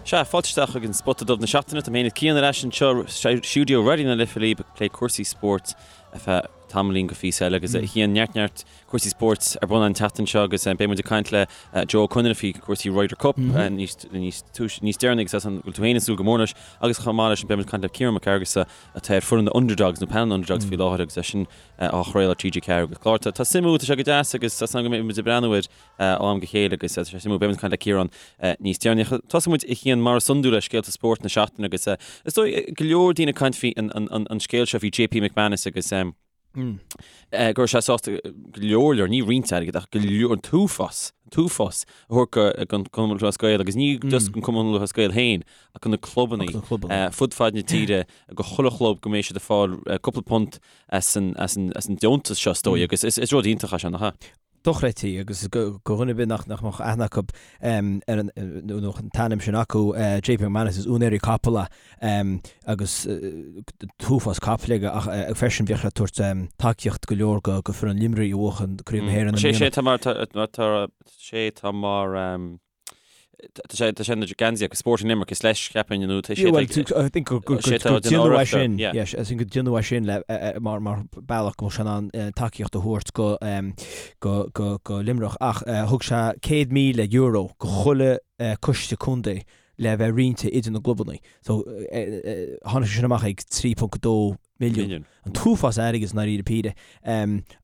Sea, fáilte isteach chuig an Spota Dubh na seachtaine. Tá mé féin is Cian ar ais anseo i stiúideo Raidió na Life libh ag plé cúrsaí spóirt ar feadh tamaillín go phíosa eile agus a Chian, neart neart cúrsaí spóirt ar bun an tseachtain seo agus beidh muid ag caint le Joe Ó Conaire faoi cúrsaí Ryder Cup níos níos túis níos deireanaí agus an bhfuil tú féin ag súil go mór leis agus chomh maith leis sin beidh muid ag caint le Ciarán Mac Fhearghusa atá ar foireann na Underdogs nó panel na Underdogs faoi láthair agus é sin á chraoladh ar TG4 agus clár tá suimiúil tá sé go deas agus tá súil agam go mbeidh muid ag breathnú air ó am go chéile agus tá sé suimiúil. Beidh muid ag caint le Ciarán níos deireanaí. Tosóidh muid a Chian mar is iondúil le scéalta spóirt na seachtaine agus is dóigh go leor daoine ag caint faoi an scéal seo faoi JP McManus agus go raibh sé sásta go leor leor, ní roinnt airgid ach go leor, an t-uafás, an t-uafás a thabhairt don Chumann Lúthchleas Gael agus ní just don Chumann Lúthchleas Gael féin ach do na clubanna fud fad na tíre go chuile chlub go mbeidh siad ag fáil cúpla punt as an deontas seo is dóigh agus is rud iontach é seo, nach ea? dochreidte agus do dhuine ar bith nach mbeadh aithne acu ar an nó an t-ainm sin acu, JP McManus, is úinéirí capall é agus t-uafás capaill aige ach freisin bhíodh sé ag tabhairt tacaíocht go leor go foireann Luimnigh a bhuachan Craobh na hÉireann i mbliana. Sé tá mar tá sé tá mar Tá sé tá sé na geansaí agus Sporting Limerick is leis cheapfainn nó tá sé Well, I think gur gur gur déanadh é sin yes, I think gur déanadh é sin le mar mar bealach go mbeadh sé in ann tacaíocht a thabhairt go go go go Luimneach ach thug sé €100,000 go chuile coiste contae le bheith roinnte idir na gclubanna. So tháinig sé sin amach ag 3.2 milliún. An t-uafás airgid i ndáiríre píre.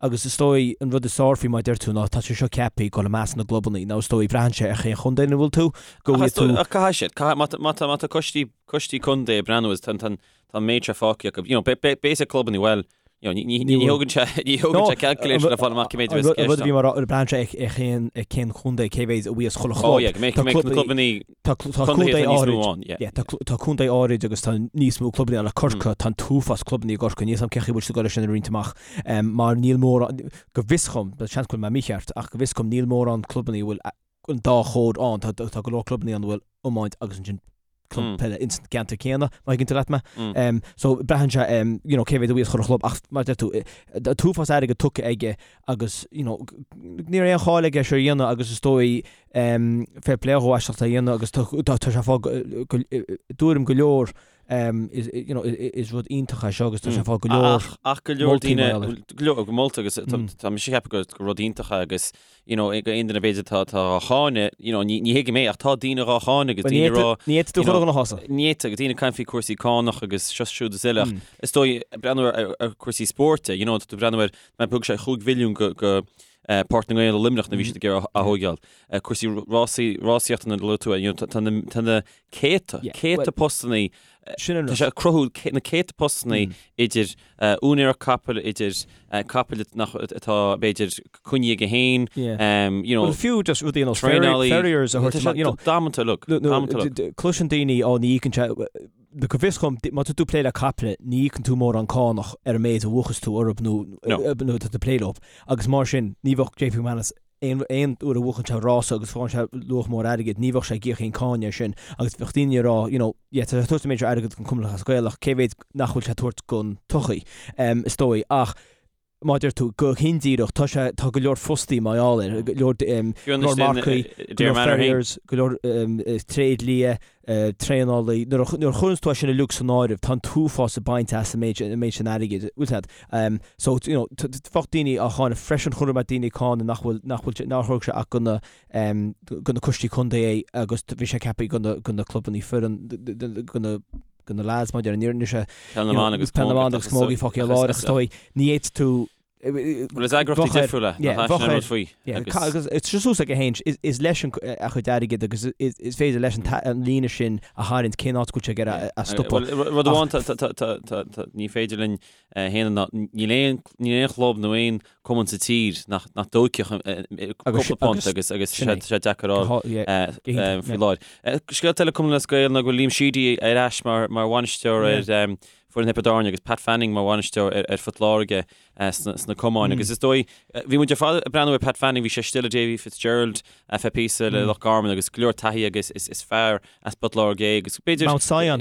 Agus is dóigh an rud is fearr faoi mar a deir tú ná tá sé seo ceaptha ag dul i measc na gclubanna nó is dóigh braitheann sé ar chén chontae ina bhfuil tú, go bhfuil tú. Ach caithfidh siad, caithfidh, má tá, má tá, má tá coistí, coistí contae ag breathnú is tá, tá, tá an méid seo fágtha acu, you know, beidh, beidh clubanna, bhuel, you know, ní, ní, ní thógann sé, ní thógann sé calculator le fáil amach cé méid a bheas i gceist. An rud a bhí mar braitheann sé ar cén, ar cén chontae, cé mhéid a bhíos chuile chlub. Oh yeah, go mbeidh, go mbeidh na clubanna Tá contae áirid, yeah, tá contae áirid agus tá níos mó clubanna ann, like Corcaigh, tá an t-uafás clubanna i gCorcaigh, níl 's a'm cén chaoi a bhfuil siad ag dul é sin a roinnt amach, mar níl mórán, go bhfios dhom, seans go bhfuil mé mícheart, ach go bhfios dhom níl mórán clubanna a bhfuil an dá chód ann, tá tá go leor clubanna ann a bhfuil iomáint agus ansin club peile ins an gceantar céanna, má thuigeann tú leat mé. So braitheann sé, you know, cé mhéad a bhíos chuile chlub ach mar a deir tú, an t-uafás airgid tugtha aige agus, you know, ní raibh aon chall aige seo a dhéanamh agus is dóigh, fair play dhó as ucht é a dhéanamh agus tá sé ag fáil i dtuairim go leor you know is rud iontach é seo agus tá sé ag fáil go leor ach go leor daoine go leor go molta agus tá mise ag ceapadh gur rud iontach é agus you know ag aon duine b'fhéidir tá tá á cháineadh you know ní ní thuigim é ach tá daoine á cháineadh agus daoine rá ní fhéadfaidh tú chur na hosa ní fhéadfaidh agus daoine ag caint faoi cúrsaí cánach agus seo siúd is eile ach is dóigh breathnú ar ar cúrsaí spóirt you know tá tú breathnú ar mar thug sé 5 mhilliún go go Páirc na nGael i Luimneach nuair a bhí siad ag iarraidh a thóigeáil. Cúrsaí rásaí, rásaíochta nuair a luaigh tú, you know, tá na, tá na céadta, céadta postannaí, tá sé ag cruthú na céadta postannaí idir úinéireacht capaill, idir capaill nach, atá b'fhéidir coinnithe aige féin, you know, Well fiú just rudaí ar nós farriers a thabhairt amach, you know. Damanta uilig, damanta uilig. Cloiseann daoine, ó ní íocann sé, Go bhfios dhom, má tá tú ag plé le caiple, ní íocann tú mórán cánach ar an méid a bhuachas tú orthu nó nó tá tú ag plé leo. Agus mar sin, ní bheadh JP McManus aon aon uair a bhuachann sé rása agus faigheann sé luach mór airgid, ní bheadh sé ag íoc aon cáin air sin. Agus bheadh daoine ag rá, you know, yeah, tá sé ag tabhairt an méid seo airgid don Chumann Lúthchleas Gael ach cé mhéad nach bhfuil sé ag tabhairt don tsochaí, is dóigh. Ach mar a deir tú, go hindíreach, tá sé, tá go leor fostaí mar gheall air, go leor, go leor marcaí, go leor farriers, go leor tréidlia, traenálaí, nuair a, nuair a chuireanns tú é sin uilig san áireamh, tá an t-uafás ag baint as an méid, an méid sin airgid, bhfuil a fhios a'd. So, you know, bheadh daoine á cháineadh freisin, chonaic mé daoine ag cáineadh nach bhfuil, nach bhfuil, nár thug sé ach go na, go na coistí contae é agus bhí sé ceaptha go na, go na clubannaí foireann, go na, go na lads mar a déarfá, níor sé Peil na mBan agus Peil na mBan agus Camogie fágtha ar lár agus is dóigh ní fhéadfaidh tú Bhuel is eagraíochtaí difriúla nach é sin an rud faoi agus it's just suas aige féin is leis an a chuid airgid agus is féidir leis an líne sin a tharraingt cén áit go bhfuil sé ag iarraidh a stopadh. Rud amháin ní féidir linn a shéanadh ná níl aon níl aon chlub nó aon cumann sa tír nach nach dtóigfeadh cúpla punt agus agus sé sé deacair a fháil faoi láthair. Scéalta eile Cumann Lúthchleas Gael ná go bhfuil Liam Sheedy ar ais mar mar bhainisteoir ar foireann Thiobraid Árann agus Pat Fanning mar bhainisteoir ar ar Phort Láirge sna sna camáin agus is dóigh bhí muid ar fad ag breathnú ar Pat Fanning bhí sé istigh le Davy Fitzgerald ar feadh píosa le Loch Garman agus go leor taithí agus is is fear as Port Láirge é agus b'fhéidir Mount Sion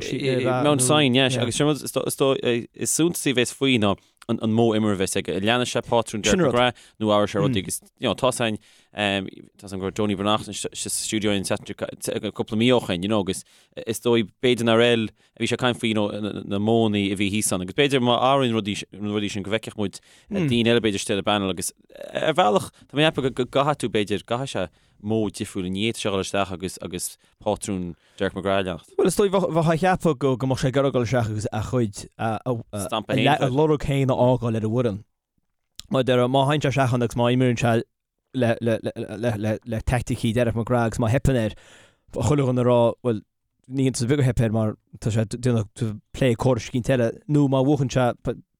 Mount Sion, yes, agus sin rud is suntasaí a bheas faoi ná. an modh imeartha a bheas aige. An leanfaidh sé pátrún Derek McGrath nó athróidh sé rudaí agus you know tá a fhios againn tá a fhios agam go raibh Donie Breathnach sa stiúideo an tseachtain cúpla mí ó shin you know agus is dóigh b'fhéidir nár fheil a bhí sé ag caint faoi you know na modhanna a bhí thíos ann agus b'fhéidir má athraíonn rudaí na rudaí sin go bhfeicfeadh muid daoine eile b'fhéidir istigh ar an bpanel agus ar bhealach tá mé ag ceapadh go gcaithfidh tú b'fhéidir gcaithfidh sé modh difriúil ní fhéadfadh sé a dhul isteach agus agus pátrún Derek McGrath a leanacht. Bhuel, is dóigh, bheifeá ag ceapadh go go mbeadh sé ag iarraidh dul isteach agus a chuid, a Stampa féin a a lorg féin a fhágáil ar an bhfoireann. Mar a déarfá, má théann sé isteach ann agus má imríonn sé le le le le le teaicticí Derek McGrath agus má theipeann air, bheadh chuile dhuine ag rá, bhuel, ní hiontas ar bith gur theip air mar tá sé ag déanamh plé córais eicínt eile, nó má bhuachann sé,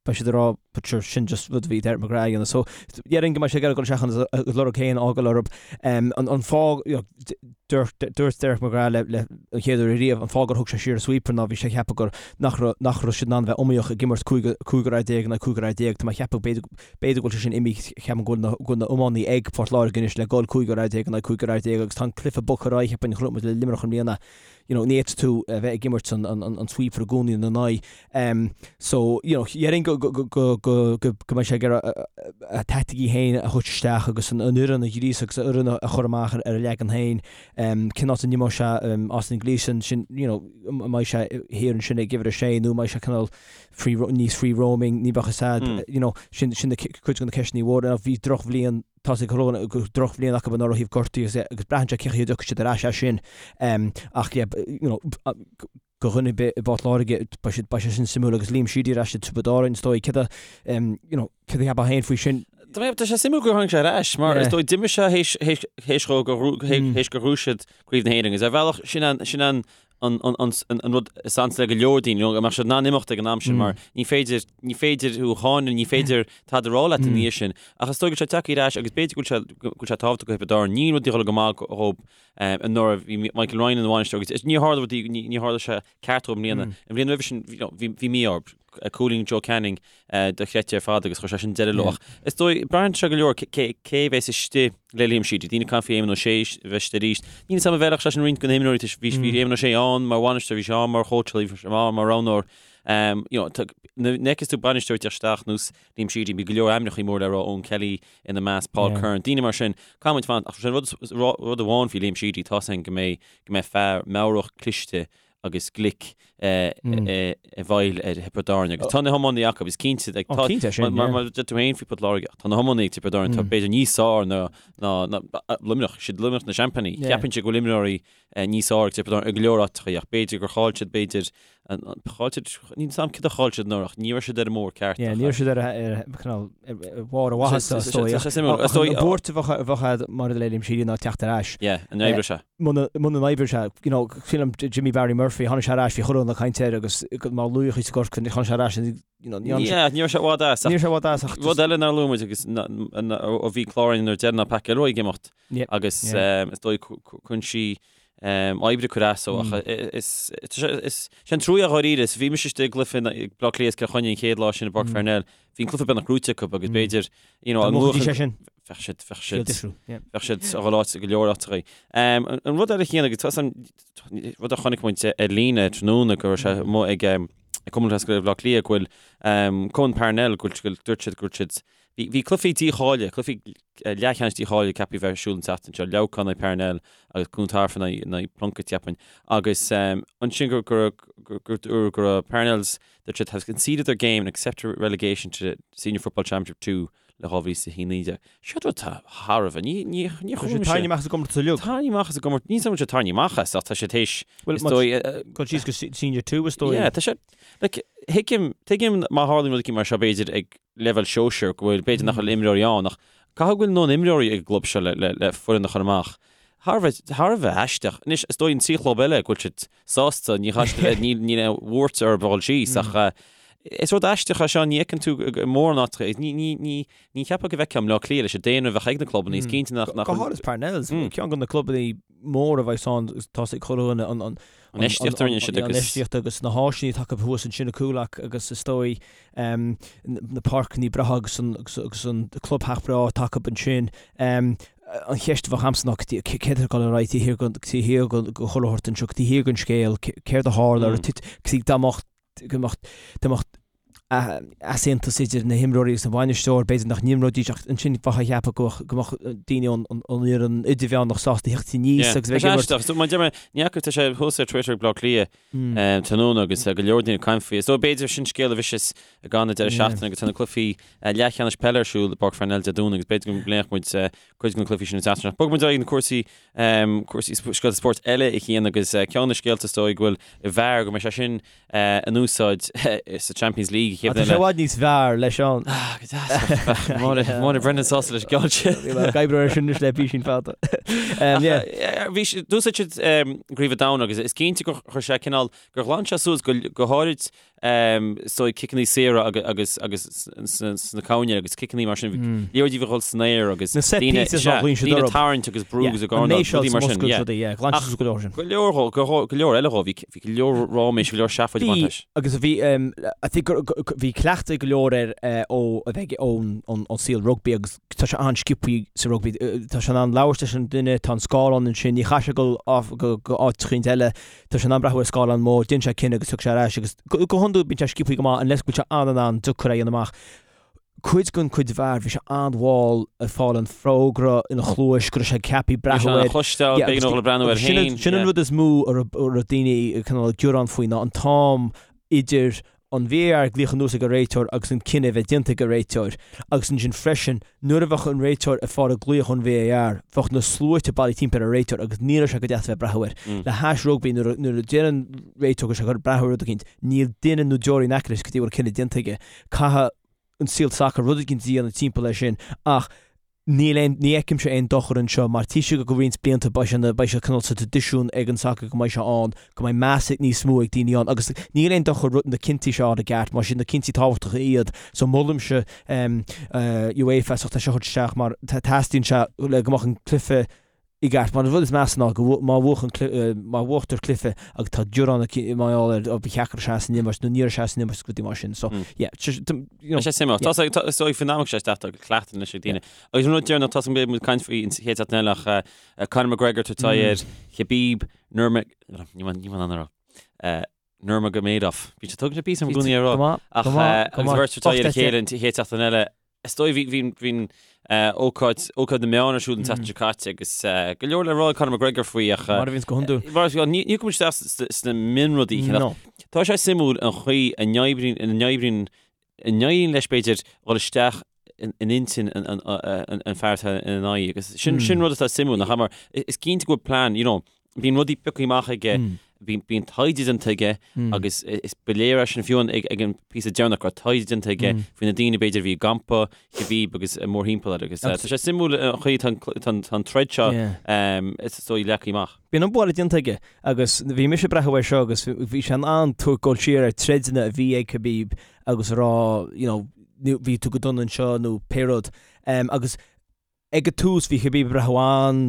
beidh siad ag rá but sure sin just rud a bhí Derek McGrath a dhéanamh. So déarfainn go mbeidh sé ag iarraidh dul isteach ann agus a lorg féin a fhágáil orthu. An fáth, you know, dúirt dúirt Derek McGrath le le an chéad uair ariamh an fáth gur thug sé siar an sweeper ná bhí sé ag ceapadh gur nach raibh nach raibh siad in ann a bheith iomaíoch ag imirt cúigear fhear déag in aghaidh cúigear fhear déag. Tá mé ag ceapadh b'fhéidir b'fhéidir go bhfuil sé sin imithe ceapaim go bhfuil na go bhfuil na iománaí ag Port Láirge anois le dul cúigear fhear déag in aghaidh cúigear fhear déag agus tá an cluiche bogtha ar aghaidh cheapfainn chonaic muid le Luimneach i mbliana you know, ní fhéadfaidh tú a bheith ag imirt an, an, an sweeper i gcónaí ina n-aghaidh. Um, so, you know, déarfainn go, go, go, go, go, go, go mbeidh sé ag iarraidh a, a, a taicticí féin a thabhairt isteach agus an, an fhoireann a ghríosadh agus an fhoireann a, a chur amach ar, ar a leagan féin. Um, cén áit a n-imreoidh sé um, Austin Gleeson sin, you know, an mbeidh sé thiar ansin ag uimhir a sé nó an mbeidh sé cineál free, níos free roaming, ní bheadh a fhios a'd, mm. you know, sin, sin na, cuid de na ceisteanna mhóra. Bhí drochbhliain Tá sé go drochbhliain acu anuraidh ó thaobh gortaithe agus agus braitheann sé cén chaoi a dtiocfaidh siad ar ais as sin. Ach yeah, you know, do dhuine ar bith i bPort Láirge, beidh siad, beidh sé sin suimiúil agus Liam Sheedy ar ais i Tiobraid Árann, is dóigh. Céard a, you know, céard a cheapfá féin faoi sin? Tá mé, tá sé suimiúil gur tháinig sé ar ais, mar is dóigh d'imigh sé théis, théis, théis dhó gur, théis gur ghnóthaigh siad Craobh na hÉireann agus ar bhealach sin an, sin an, an, an, an, an rud is ansa le go leor daoine, you know, go mbeadh siad in ann imeacht ag an am sin mar ní féidir, ní féidir thú a cháineadh, ní féidir tada a rá leat ina dhiaidh sin. Ach is dóigh go bhfuil sé tagtha ar ais agus b'fhéidir go bhfuil sé, go bhfuil sé tábhachtach do Thiobraid Árann. Níl rudaí ag dul go maith dhóibh anuraidh, bhí Michael Ryan ina bhainisteoir agus níor tharla rudaí, ní, níor tharla sé ceart dhóibh i mbliana. An bhliain roimhe sin, you know, bhí, bhí mí-ádh orthu. Cúilín Joe Canning dochreidte ar fad agus chuir sé sin deireadh leo. Ach is dóigh, braitheann sé go leor cé a bheas istigh le Liam Sheedy. Daoine ag caint faoi Éamon Ó Sé a bheith istigh arís. Níl a fhios agam an bhfeilfeadh sé sin roinnt de na himreoirí toisc bhí bhí Éamon Ó Sé ann mar bhainisteoir, bhí sé ann mar chóitseálaí, bhí sé ann mar roghnóir. You know, nuair a fheiceas tú bainisteoir ag teacht isteach ar nós Liam Sheedy, bhí go leor ainmneacha mór le rá, Eoin Kelly ina measc, Paul Curran, daoine mar sin. Caithfidh muid fanacht. Ach sin rud rud amháin faoi Liam Sheedy, tá a fhios againn go mbeidh go mbeidh fear meabhrach cliste agus glic i bhfeighil ar Thiobraid Árann agus tá na hiománaí acu, is cinnte like, tá, cinnte sin, mar, mar deir tú féin faoi Port Láirge, tá na hiománaí ag Tiobraid Árann, tá b'fhéidir níos fearr ná, ná, ná Luimneach, siad Luimneach na seaimpíní. Yeah. Cheapfainnse go bhfuil imreoirí níos fearr ag Tiobraid Árann i go leor áiteacha ach b'fhéidir gur chaill siad b'fhéidir an, an, chaill siad, níl a fhios agam céard a chaill siad anuraidh ach ní raibh siad ar an mbóthar ceart. Yeah, ní raibh siad ar a, ar, cineál, ar, ar bharr a mhaitheasa, is dóigh. Tá sé suimiúil. Is dóigh. An buairt a bheadh, a bheadh agat maidir le Liam Sheedy ná teacht ar ais. Yeah, an oibreoidh sé. Muna n-oibreoidh sé, you know, sílim Jimmy Barry Murphy, tháinig sé ar ais, bhí chuile dhuine ag caint air agus mar laoch i gCorcaigh, tháinig sé ar ais and, you know, ní Yeah, ní raibh sé i bhfad as. Ní raibh sé i bhfad as ach Rud eile nár luaigh muid agus ó bhí clár againn nuair deireanach Pat Gilroy ag imeacht agus is dóigh cúinsí oibre cur as dó ach is is sé an trua dháiríre is bhí mise istigh i gcluiche Baile Átha Cliath is Cill Chainnigh an chéad lá sin i bPáirc Pharnell Bhí an cluiche beagnach gnóite acu agus b'fhéidir, you know, an luach sé sin. Bheadh siad, bheadh siad, bheadh siad a dhul áit go leor áiteachaí. An rud eile chéanna, agus tá an rud a chonaic muid ar líne tráthnóna go raibh sé amuigh ag Cumann Lúthchleas Gael Bhaile Átha Cliath go bhfuil Cumann Parnell go bhfuil dúirt siad go bhfuil siad bhí cluichí dícháilithe, cluichí leathcheannais dícháilithe ceaptha a bheith ar siúl an tseachtain seo, Leamhcán in aghaidh Parnell agus Cluain Tarbh in aghaidh Plunkett cheapfainn. Agus ansin gur gur gur gur go raibh Parnell's Dúirt siad have conceded their game and accepted relegation to Senior Football Championship 2 le 2019. Seo rud atá thar a bheith. Ní, ní, ní Tá sé tarraingthe amach as an gcomórtas uilig. Tarraingthe amach as an gcomórtas. Níl a fhios agam an bhfuil sé tarraingthe amach as ach tá sé théis, Well, is dóigh, Dul síos go Senior 2 is dóigh. Yeah, tá sé, like, thuigim, tuigim má tharlaíonn rud éicint mar seo b'fhéidir ag leibhéal sóisir go bhfuil, b'fhéidir nach bhfuil imreoirí ann ach caithfidh go bhfuil a ndóthain imreoirí ag an gclub seo le, le, le foireann a chur amach. Thar a bheith, thar a bheith aisteach. Anois, is dóigh an trí chlub eile go bhfuil siad sásta, ní chaithfidh siad a bheith, níl, níl aon bhuairt orthu a dhul síos ach is rud aisteach é seo, ní fheiceann tú i mórán áiteacha, ní, ní, ní, ní cheapfá go bhfeicfeá i mBleá Cliath leis an daonra a bheadh ag na clubanna, is cinnte nach, nach. Go háirithe Parnells, ceann de na clubanna móra a bheas ann, tá sé ag cur an, an, an, An infheistíocht a rinne siad agus. An infheistíocht agus na háiseanna atá acu thuas ansin i Coolock agus is dóigh na páirceanna breátha agus an, agus an clubtheach breá atá acu ansin. An cheist a bheadh agamsa ná céard atá ag dul ar aghaidh taobh thiar den, taobh thiar den chuile shórt anseo, taobh thiar den scéal, céard a tharla, ar thit, dá mbeadh, go mbeadh, dá mbeadh. Easaontas idir na himreoirí agus an bhainisteoir, b'fhéidir nach n-imreoidís ach ansin bheifeá ag ceapadh go mbeadh daoine ón fhoireann idirmheánach sásta theacht aníos agus bheith ag imirt. Is mar deir mé, ní fhaca, tá sé thuas ar Twitter ag Bleá Cliath tráthnóna agus go leor daoine ag caint faoi. Is dóigh b'fhéidir sin scéal a bheas ag an deireadh seachtaine agus tá na cluichí leathcheannais peile ar siúl i bPáirc Pharnell Dé Domhnaigh agus b'fhéidir go bpléifeadh muid cuid de na cluichí sin an tseachtain seo. Bogfaidh muid ar aghaidh na cúrsaí cúrsaí scéalta spóirt eile a Chian agus ceann de na scéalta is dóigh go bhfuil VAR go mbeidh sé sin in úsáid sa Champions League an chéad bhliain eile. Tá sé i bhfad níos fearr leis an. Ah, go deas. Máire Brendan sásta leis an gceann sin. Bhí mé ag oibriú air sin anois le písín fada. Bhí sé, d'úsáid siad i gCraobh an Domhain agus is cinnte gur chuir sé cineál, gur ghlan sé suas go go háirid is dóigh ciceanna saora agus agus sna cúinní agus ciceanna mar sin. Liathróidí a bhí ag dul san aer agus Na set daoine pieces ná ghlaoin siad daoine orthu. tarraingt agus brú agus ag An méid rudaí mar sin. Yeah. rudaí, yeah, ghlan siad suas go leor sin. Go leor dhó, go go leor eile dhó, bhí bhí go leor ráiméis, go leor seafóid ag baint leis. Agus bhí I think gur bhí cleachtadh go leor air ó a bheith ón ón saol rugbaí agus tá sé an-sciobthaí sa rugbaí. Tá sé in ann labhairt leis an duine, tá an scáileán ansin, ní chaithfidh sé dul go go áit eicínt eile, tá sé in ann breathnú ar scáileán mór, déanann sé cinneadh agus tiocfaidh sé ar ais agus go go hiondúil bíonn sé sciobthaí go maith unless go bhfuil sé an-an-deacair é a dhéanamh amach. Cuid den chuid VAR, bhí sé an-mhall ag fáil an fógra ina chluais go raibh sé ceaptha breathnú air. Chloisteáil, b'éigean dó breathnú air féin. Sin an rud is mó a raibh daoine cineál ag gearán faoi ná an t-am idir an VAR ag glaoch anuas ag an réiteoir agus an cinneadh a bheith déanta ag an réiteoir agus ansin freisin nuair a bheadh an réiteoir ag fáil an glaoch ón VAR bheadh na sluaite bailithe timpeall ar an réiteoir agus ní raibh sé go deas a bheith ag breathnú air. Le hais rugbaí nuair a deir an réiteoir go bhfuil sé ag dul breathnú ar rud eicínt níl duine nó deoraí in aice leis go dtí go bhfuil cinneadh déanta aige. Caithfidh an saol sacair rud éigin a dhéanamh timpeall air sin ach níl aon, ní fheicimse aon dochar anseo mar tá sé go roinnt blianta beidh sé ina, beidh sé cineál sa traidisiún ag an sacar go mbeidh sé ann, go mbeidh meas ag níos mó ag daoine ann agus níl aon dochar rud na cinntí seo a fháil i gceart mar is iad na cinntí tábhachtacha iad so molaimse UEFA as ucht é seo a thabhairt isteach mar teastaíonn sé le go mbeadh an cluiche i gceart. Mar an rud is measa ná go má bhuachann má bhuachtar cluiche agus tá gearán mar gheall air ó ba cheart go raibh sé as an imirt nó ní raibh sé as an imirt agus rudaí mar sin. So yeah, you know. Tá sé suimiúil. Tá sé is dóigh faoin am sé isteach tá cleachtadh anois ag daoine. Agus an rud deireanach tá beidh muid ag caint faoi an chéad seachtain eile ach Conor McGregor ag tabhairt aghaidh ar Khabib Nurma ní bhain an rá. Nurmagomedov. Bhí sé tugann sé píosa i gcónaí a rá. Ach agus bheirt ag tabhairt aghaidh ar a chéile an chéad seachtain eile. Is dóigh bhí bhí bhí ócáid ócáid na meán ar siúl an tseachtain seo caite agus go leor le rá ag Conor McGregor faoi ach Mar a bhíonns go hiondúil. Mar ní ní chuaigh muid isteach sna mionrudaí No. Tá sé suimiúil an chaoi a n-oibríonn ina n-oibríonn a n-éiríonn leis b'fhéidir dhul isteach in in intinn an an an an fear atá ina aghaidh agus sin sin rud atá suimiúil nach ea mar is cinnte go bhfuil plean you know bíonn rudaí pioctha amach aige, bíonn taighde déanta aige agus is ba léir é sin fiú ag ag an píosa deireanach go raibh taighde déanta aige faoi na daoine b'fhéidir a bhí i gcampa Khabib agus mórthimpeall air agus tá sé suimiúil an chaoi tá an troid seo is dóigh leagtha amach. Bíonn an bualadh déanta aige agus bhí mise ag breathnú air seo agus bhí sé in ann tabhairt dul siar ar troideanna a bhí ag Khabib agus a rá you know bhí tú go dona anseo nó pé rud agus Ag an tús bhí Khabib ag breathnú an,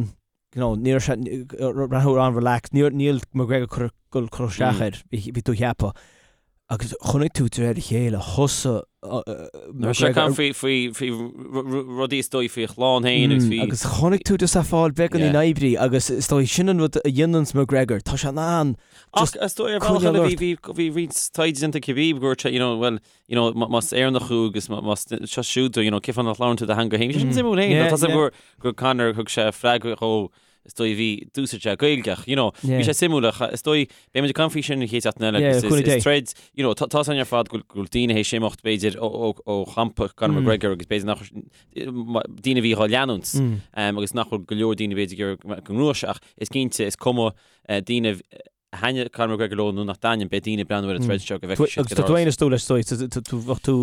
you know, ní raibh sé breathnú an-relaxed, níl níl McGregor cur dul cur isteach air, bhí bhí tú a cheapadh. Agus chonaic tú de réir a chéile, thosaigh Bhí sé ag caint faoi faoi faoi rudaí is dóigh faoi a chlann féin agus faoi. Agus chonaic tú just é ag fáil beagáinín oibrí agus is dóigh sin an rud a dhéananns McGregor, tá sé in ann just Ach is dóigh ar bhealach eile bhí bhí bhí roinnt taighde déanta ag Khabib go dúirt sé, you know, well, you know, más Éireannach thú agus más seo siúd tú, you know, cén fáth nach labhrann tú do theanga féin. Sin suimiúil féin. Tá sé gur gur Conor thug sé freagra dhó is dóigh bhí d'úsáid sé Gaeilge ach, you know, bhí sé suimiúil ach is dóigh beidh muid ag caint faoi sin an chéad seachtain eile agus is is troid, you know, tá tá san ar fad go bhfuil daoine théis imeacht b'fhéidir ó ó ó champa Conor McGregor agus b'fhéidir nach daoine a bhí dhá leanúint agus nach bhfuil go leor daoine b'fhéidir go ngnóthóidh sé ach is cinnte is cuma daoine a thaitníonn Conor McGregor leo nó nach dtaitníonn, beidh daoine ag breathnú ar an troid seo go bhfeicfidh siad Agus tá tú féin is dóigh leis, dóigh, tú, bheadh tú,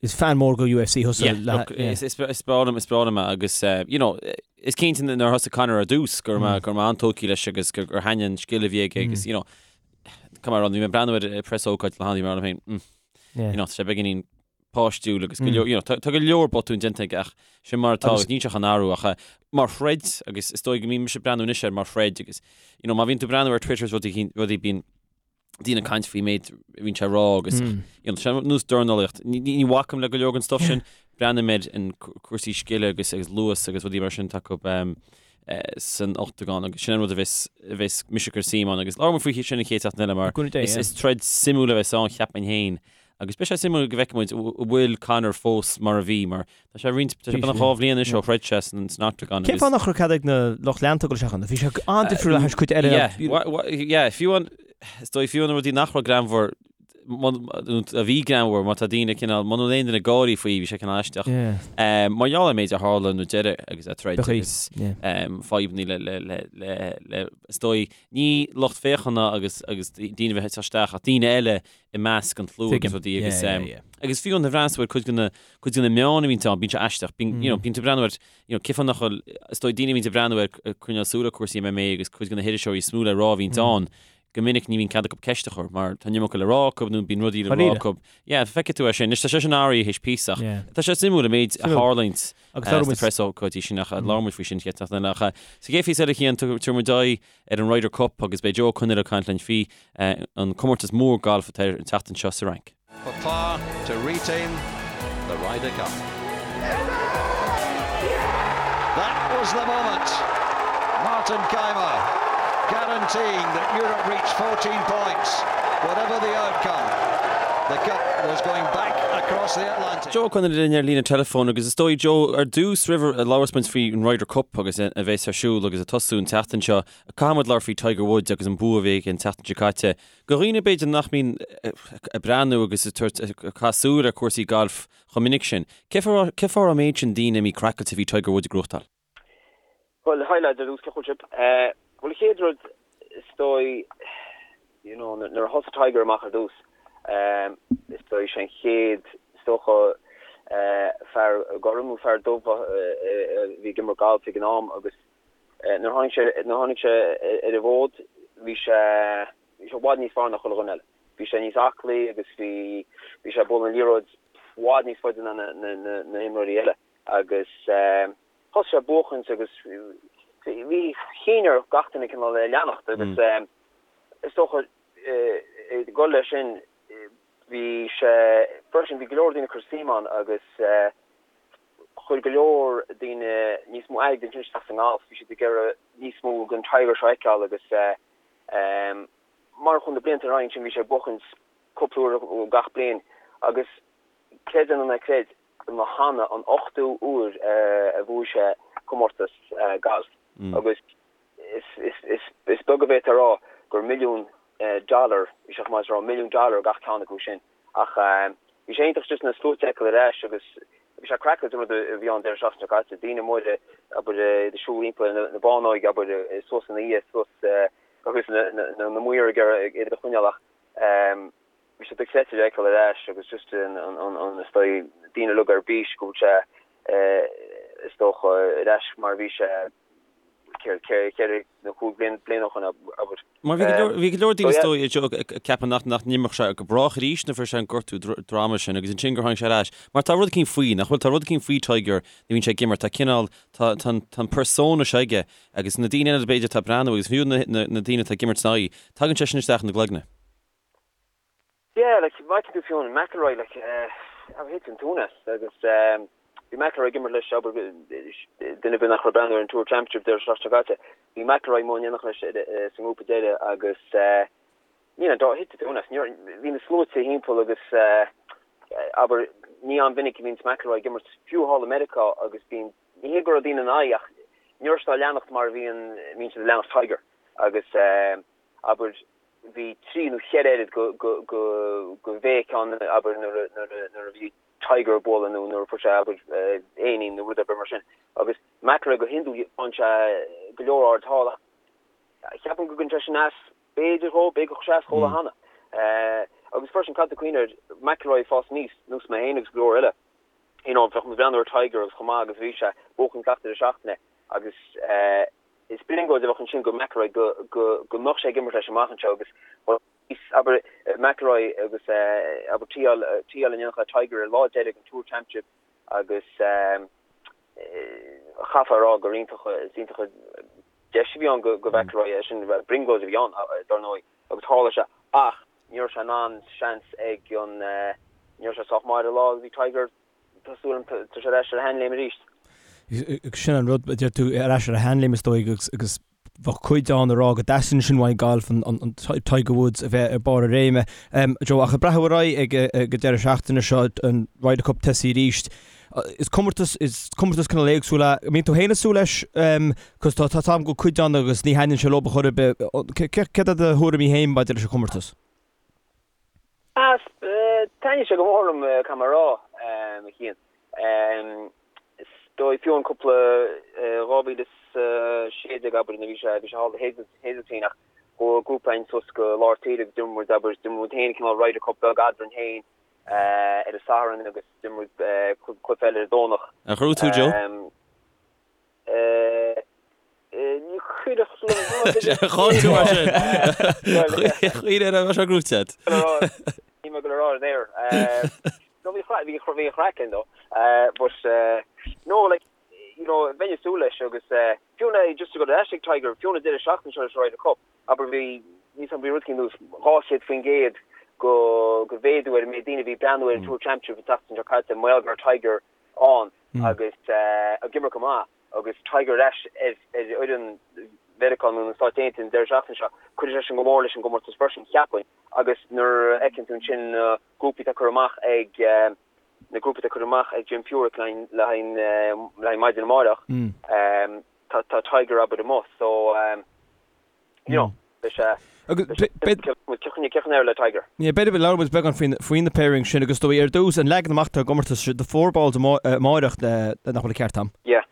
is fan mór go UFC thusa. Yeah, look, is, is, is breá liom, is breá liom é agus, uh, you know, is cinnte nuair a thosaigh Conor ar dtús go raibh mé, go raibh mé an-tógtha leis agus gur, gur thaitnigh an scil a bhí aige agus, you know, come on, bhí mé ag breathnú ar an press ócáid le hAndy mar féin, mm, you know, tá sé beagáinín páistiúil agus go leor, you know, tá go leor botún déanta aige ach sin mar atá agus níl sé chun athrú ach mar throid agus is dóigh go mbím mise ag breathnú anois air mar throid agus you know, má bhíonn tú ag breathnú ar Twitter is rudaí, rudaí bíonn daoine ag caint faoi méid a bhíonn sé ag rá agus you know, sé nós dornálaíocht. Ní, ní, ní bhacaim le go leor den stuff sin, breathnaím ar an cúrsaí scile agus agus luas agus rudaí mar sin atá acu um, eh, san ochtagán agus sin an rud a bheas, a bheas mise ag cur suim ann agus labhróidh muid faoi sin an chéad seachtain eile mar is, is troid suimiúil a bheas ann cheapfainn féin. Agus beidh sé suimiúil go bhfeicfidh muid an bhfuil Conor fós mar a bhí, mar tá sé roinnt, tá sé beagnach 2 bhliain anois ó throid sé san Octagon. Cén fáth nach raibh cead ag na lucht leanta dul isteach ann? Bhí sé an-difriúil le hais cuid eile. Yeah, fiú an, is dóigh fiú na rudaí nach raibh greannmhar, a bhí greannmhar, má tá daoine cineál, muna bhfuil aon duine ag gáirí faoi, bhí sé cineál aisteach. Mar gheall ar an méid a tharla nó deireadh agus a troid agus fadhbanna le, le, le, le, le, is dóigh, ní lucht féachana agus, agus daoine a bheith ag teacht isteach ach daoine eile i measc an tslua agus rudaí agus agus fiú an bhreathnaíonn tú ar cuid de na cuid de na meáin a bhíonn ann bíonn sé aisteach bíonn you know bíonn tú ag breathnú ar you know cén fáth nach bhfuil is dóigh daoine a bhíonn ag breathnú ar coinneáil súil ar cúrsaí MMA agus cuid de na hiriseoirí is mó le rá a bhíonn ann go minic ní bhíonn cead acu ceist a chur mar tá an iomarca le rá acu nó bíonn rudaí le rá acu. Yeah, feicfidh tú é sin. Anois tá sé sin athraithe théis píosa ach tá sé suimiúil an méid a tharlaíonn sna preasócáidí sin ach labhair muid faoi sin chéad seachtain eile ach sa gcéad phíosa eile a Chian tabharfaidh muid aghaidh ar an Ryder Cup agus beidh Joe Ó Conghaile ag caint linn faoi an comórtas mór gailf atá ar an tseachtain seo sa Fhrainc. For par to retain the Ryder Cup. That was the moment. Martin Kaymer guaranteeing that Europe reached 14 points, whatever the outcome. The cup was going back across the Atlantic. Joe Ó Conghaile linn ar líne teileafóin agus is dóigh Joe ar dtús roimh a labhras muid faoi an Ryder Cup agus a bheas ar siúl agus ag tosú an tseachtain seo caithfidh muid labhairt faoi Tiger Woods agus an bua a bhí aige an tseachtain seo caite. Do dhaoine b'fhéidir nach mbíonn ag breathnú agus ag tabhairt ag caitheamh súil ar cúrsaí gailf chomh minic sin, cé fáth a raibh an méid sin daoine imithe craiceáilte faoi Tiger Woods ag gnóthachtáil? Bhuel, hi lads, ar dtús, cén chaoi a bhfuil sibh? Bhuel, an chéad rud, is dóigh, you know, nuair a thosaigh Tiger amach ar dtús, is dóigh, sé an chéad, is dócha, fear gorm nó fear dubh a bhí ag imirt galf ag an am agus nuair a tháinig sé, nuair a tháinig sé ar an bhfód, bhí sé, bhí sé i bhfad níos fearr ná chuile dhuine eile. Bhí sé níos aclaí agus bhí, bhí sé ag bualadh an liathróid i bhfad níos faide ná na, na, na, na himreoirí eile agus Thosaigh sé ag buachaint agus bhí chinn ar gach duine cineál é a leanacht agus is dócha ag dul leis sin bhí sé freisin bhí go leor daoine ag cur suim ann agus chuir go leor daoine níos mó airgid ansin isteach sa ngalf, bhí siad ag iarraidh níos mó den Tiger seo a fheiceáil agus mar a chuaigh na blianta ar aghaidh ansin bhí sé ag buachaint cúpla uair gach bliain agus creid é nó ná creid ba cheana an ochtú uair a bhuaigh sé comórtas gailf agus is beag a bhféadfá a rá gur milliún dollar, bhí sé chomh maith is a rá milliún dollar gach ceann acu sin. Ach bhí sé iontach just na sluaite a fheiceáil ar ais agus bhí sé craiceáilte an rud a bhí ann deireadh seachtaine seo caite, daoine móra abair ag siúl timpeall na bánóige abair suas ina dhiaidh suas agus na maoir ag iarraidh iad a choinneáil ach Bhí sé dochreidte a fheiceáil ar ais agus just an is dóigh daoine uilig ar bís go bhfuil sé is dócha ar ais mar a bhí sé ceithre nó cúig bliana ó shin abair. Mar bhí go leor daoine is dóigh ag ceapadh nach nach n-imreodh sé go brách arís nuair a fuair sé an gortú droma sin agus ansin gur tháinig sé ar ais. Mar tá rud eicínt faoi, nach bhfuil? Tá rud eicínt faoi Tiger nuair a bhíonn sé ag imirt, tá cineál, tá an persona seo aige agus na daoine eile b'fhéidir atá ag breathnú agus fiú na daoine atá ag imirt ina aghaidh, tagann sé sin isteach ina gcloigne. Yeah, like, má fheiceann tú fiú an McIlroy, like, eh, thit an tóin as agus eh, bhí McIlroy ag imirt leis, abair, duine ar bith nach raibh ag breathnú ar an Tour Championship deireadh seachtaine seo caite, bhí McIlroy amuigh in éineacht leis eh, sa ngrúpa deiridh agus eh, ní an dá thit an tóin as, bhí na sluaite thimpeall agus eh, abair, ní an-mhinic a bhíonns McIlroy ag imirt fiú thall i Meiriceá agus bíonn, ní hé go raibh daoine ina aghaidh ach ní raibh siad á leanacht mar a bhíonn, bhíonn siad ag leanacht Tiger agus eh, abair, bhí trí nó cheithre oiread go bhéic ann, abair, nuair a bhí Tiger ag bualadh nó nuair a fuair sé, abair, éinín nó rud ar bith mar sin. Agus McIlroy go hiondúil faigheann sé go leor aird thall ach ceapaim go gcuireann sé sin as, b'fhéidir dhó, b'fhéidir gur chuir sé as dhó cheana. Agus freisin, caithfidh tú cuimhneamh air, McIlroy ag fás aníos, nós mé féin agus go leor eile, you know, bheadh muid ag breathnú ar Tiger agus chomh maith agus a bhí sé, buachan gach deireadh seachtaine agus, Is brionglóid a bheadh ansin go McIlroy go go mbeadh sé ag imirt leis amach anseo agus abair McIlroy agus abair tee-áil tee-áil in éineacht le Tiger ar lá deiridh an Tour Championship agus chaithfeá a rá gur iontach is iontach an deis a bhí ann go go McIlroy é sin brionglóid a bhí ann dar ndóigh agus tharla sé ach ní raibh sé in ann seans ag an ní raibh sé sách maith ar an lá a bhí Tiger Tá súil agam tá sé ar ais ar a sheanléim arís. Sin an rud, a deir tú, ar ais ar a sheanléim is dóigh agus agus bheadh cuid ann ag rá go dteastaíonn sin uaidh an galf, an Tiger Woods a bheith ar barr a réime. Joe, ach ag breathnú ar aghaidh ag an deireadh seachtaine seo, an Ryder Cup tosaithe arís, is comórtas, is comórtas cineál éagsúil é. An mbíonn tú féin ag súil leis? Cos tá tá am go cuid ann agus ní thaitníonn sé leo chor ar bith. Céard iad do thuairimí féin maidir leis an chomórtas? Taitníonn sé go mór liom, caithfidh mé a rá, a Chian. Is dóigh fiú an cúpla 2016 abair nuair a bhí sé bhí sé thall i Hazeltine ach chuaigh grúpa againn suas go lár tíre agus d'imir muid abair d'imir muid féin cineál Ryder Cup beag eadrainn féin ar an Satharn agus d'imir muid cluiche eile ar an Domhnach. Ar ghnóthaigh tú Joe? Ní chuirfeadh liom Chaill tú mar sin. Chuir ar a sé gnóthaithe agat. Níl mé ag dul a rá ar an aer. No bhí bhí bhí an chraic ann though. But no like you know bheinn ag súil leis agus fiú na just to go ar ais ag Tiger fiú na deireadh seachtaine seo leis Ryder Cup abair bhí níos bhí rud éicint ar nós 200% go go mhéadú ar an méid daoine a bhí ag breathnú ar an Tour Championship an tseachtain seo caite mar gheall go raibh Tiger ann agus ag imirt go maith agus Tiger ar ais ar fhoireann Mheiriceá nó na Stáit Aontaithe an deireadh seachtaine seo, cuirfidh sé sin go mór leis an gcomórtas freisin, cheapfainn. Agus nuair a fheiceann tú ansin na grúpaí atá curtha amach ag na grúpaí atá curtha amach ag Jim Furyk le haghaidh le haghaidh maidin amárach, tá Tiger abair amuigh so you know, beidh sé Cén le Tiger. B'fhéidir go labhróidh muid beagán faoi na pairings sin agus dóigh ar dtús an leagan amach atá ar an gcomórtas the four balls amáireach nach bhfuil an ceart a'm. Yeah.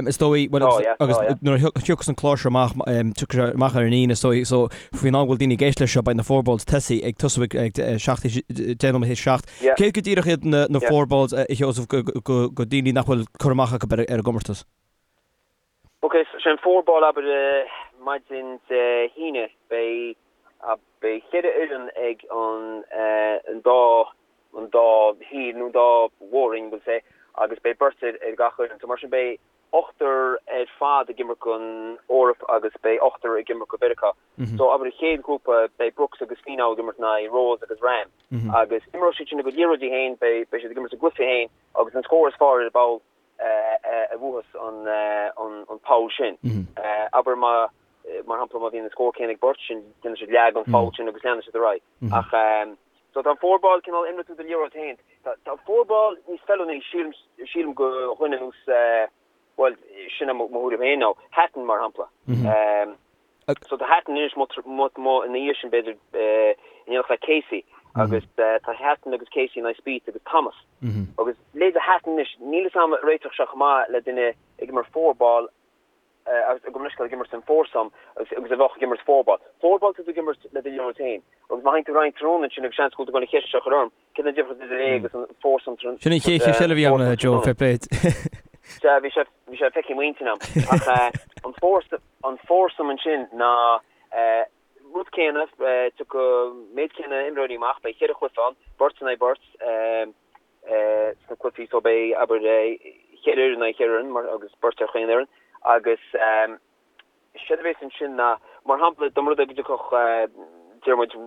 Is dóigh well oh, yeah. agus oh, yeah. nuair a thiocfas an clár seo amach tiocfaidh sé amach ar an Aoine is dóigh so faoin am go bhfuil daoine ag éisteacht leis seo beidh na four balls tosaithe ag tosú ag 7 10 nóiméad théis 7. Céard go díreach iad na four balls a Sheosaimh go daoine nach bhfuil cur amach acu ar an gcomórtas? Ok, so sé an four ball abair maidin Dé hAoine beidh beidh cheithre fhoireann ag an an dá an dá thír nó an dá mhór-roinn we'll say agus beidh beirt ar ar gach fhoireann. So mar sin beidh ochtar ar fad ag imirt don Eoraip agus beidh ochtar ag imirt do Mheiriceá. So abair an chéad ghrúpa beidh Brooks agus Finau ag imirt in aghaidh Rose agus Rahm agus imreoidh siad sin a gcuid liathróidí féin beidh beidh siad ag imirt a gcluiche féin agus an scór is fearr ar an bpoll a bhuafas an poll sin. Abair má, mar shampla, má bhíonn an scór céanna ag beirt, sin, déanann siad leath den pholl sin agus leanann siad ar aghaidh. Ach, so tá an four ball cineál imreoidh tú do liathróid féin. Tá an four ball níos feiliúnaí, sílim, sílim go dhuine ar nós, bhuel, sin é mo thuairim féin now, Hatton mar shampla. So tá Hatton anois amuigh ina dhiaidh sin b'fhéidir in éineacht le Casey agus tá Hatton agus Casey in aghaidh Spieth agus Thomas. Agus leithéide Hatton anois, níl fhios a'm an réiteodh sé chomh maith le duine ag imirt four ball agus gabh mo leithscéal ag imirt san foursome agus agus a bheadh ag imirt four ball. Four ball tá tú ag imirt le do liathróid féin agus má théann tú ar aghaidh tráthnóna ansin agus seans go bhfuil tú ag dul an cheist seo a chur orm, céard an difríocht idir é agus an foursome Sin an chéad cheist eile a bhí agam, Joe, fair play. Sea, bhí sé bhí sé feicthe i m'intinn a'm. Ach an foursome An foursome ansin ná rud céanna, tiocfaidh méid céanna imreoirí amach, beidh cheithre chluiche ann, beirt in aghaidh beirt sna cluichí so beidh, abair, cheithre fhoireann in aghaidh cheithre fhoireann mar agus beirt ar chaon fhoireann agus séard a bhéas ansin ná, mar shampla, dá mba rud é go dtiocfadh, deir muid,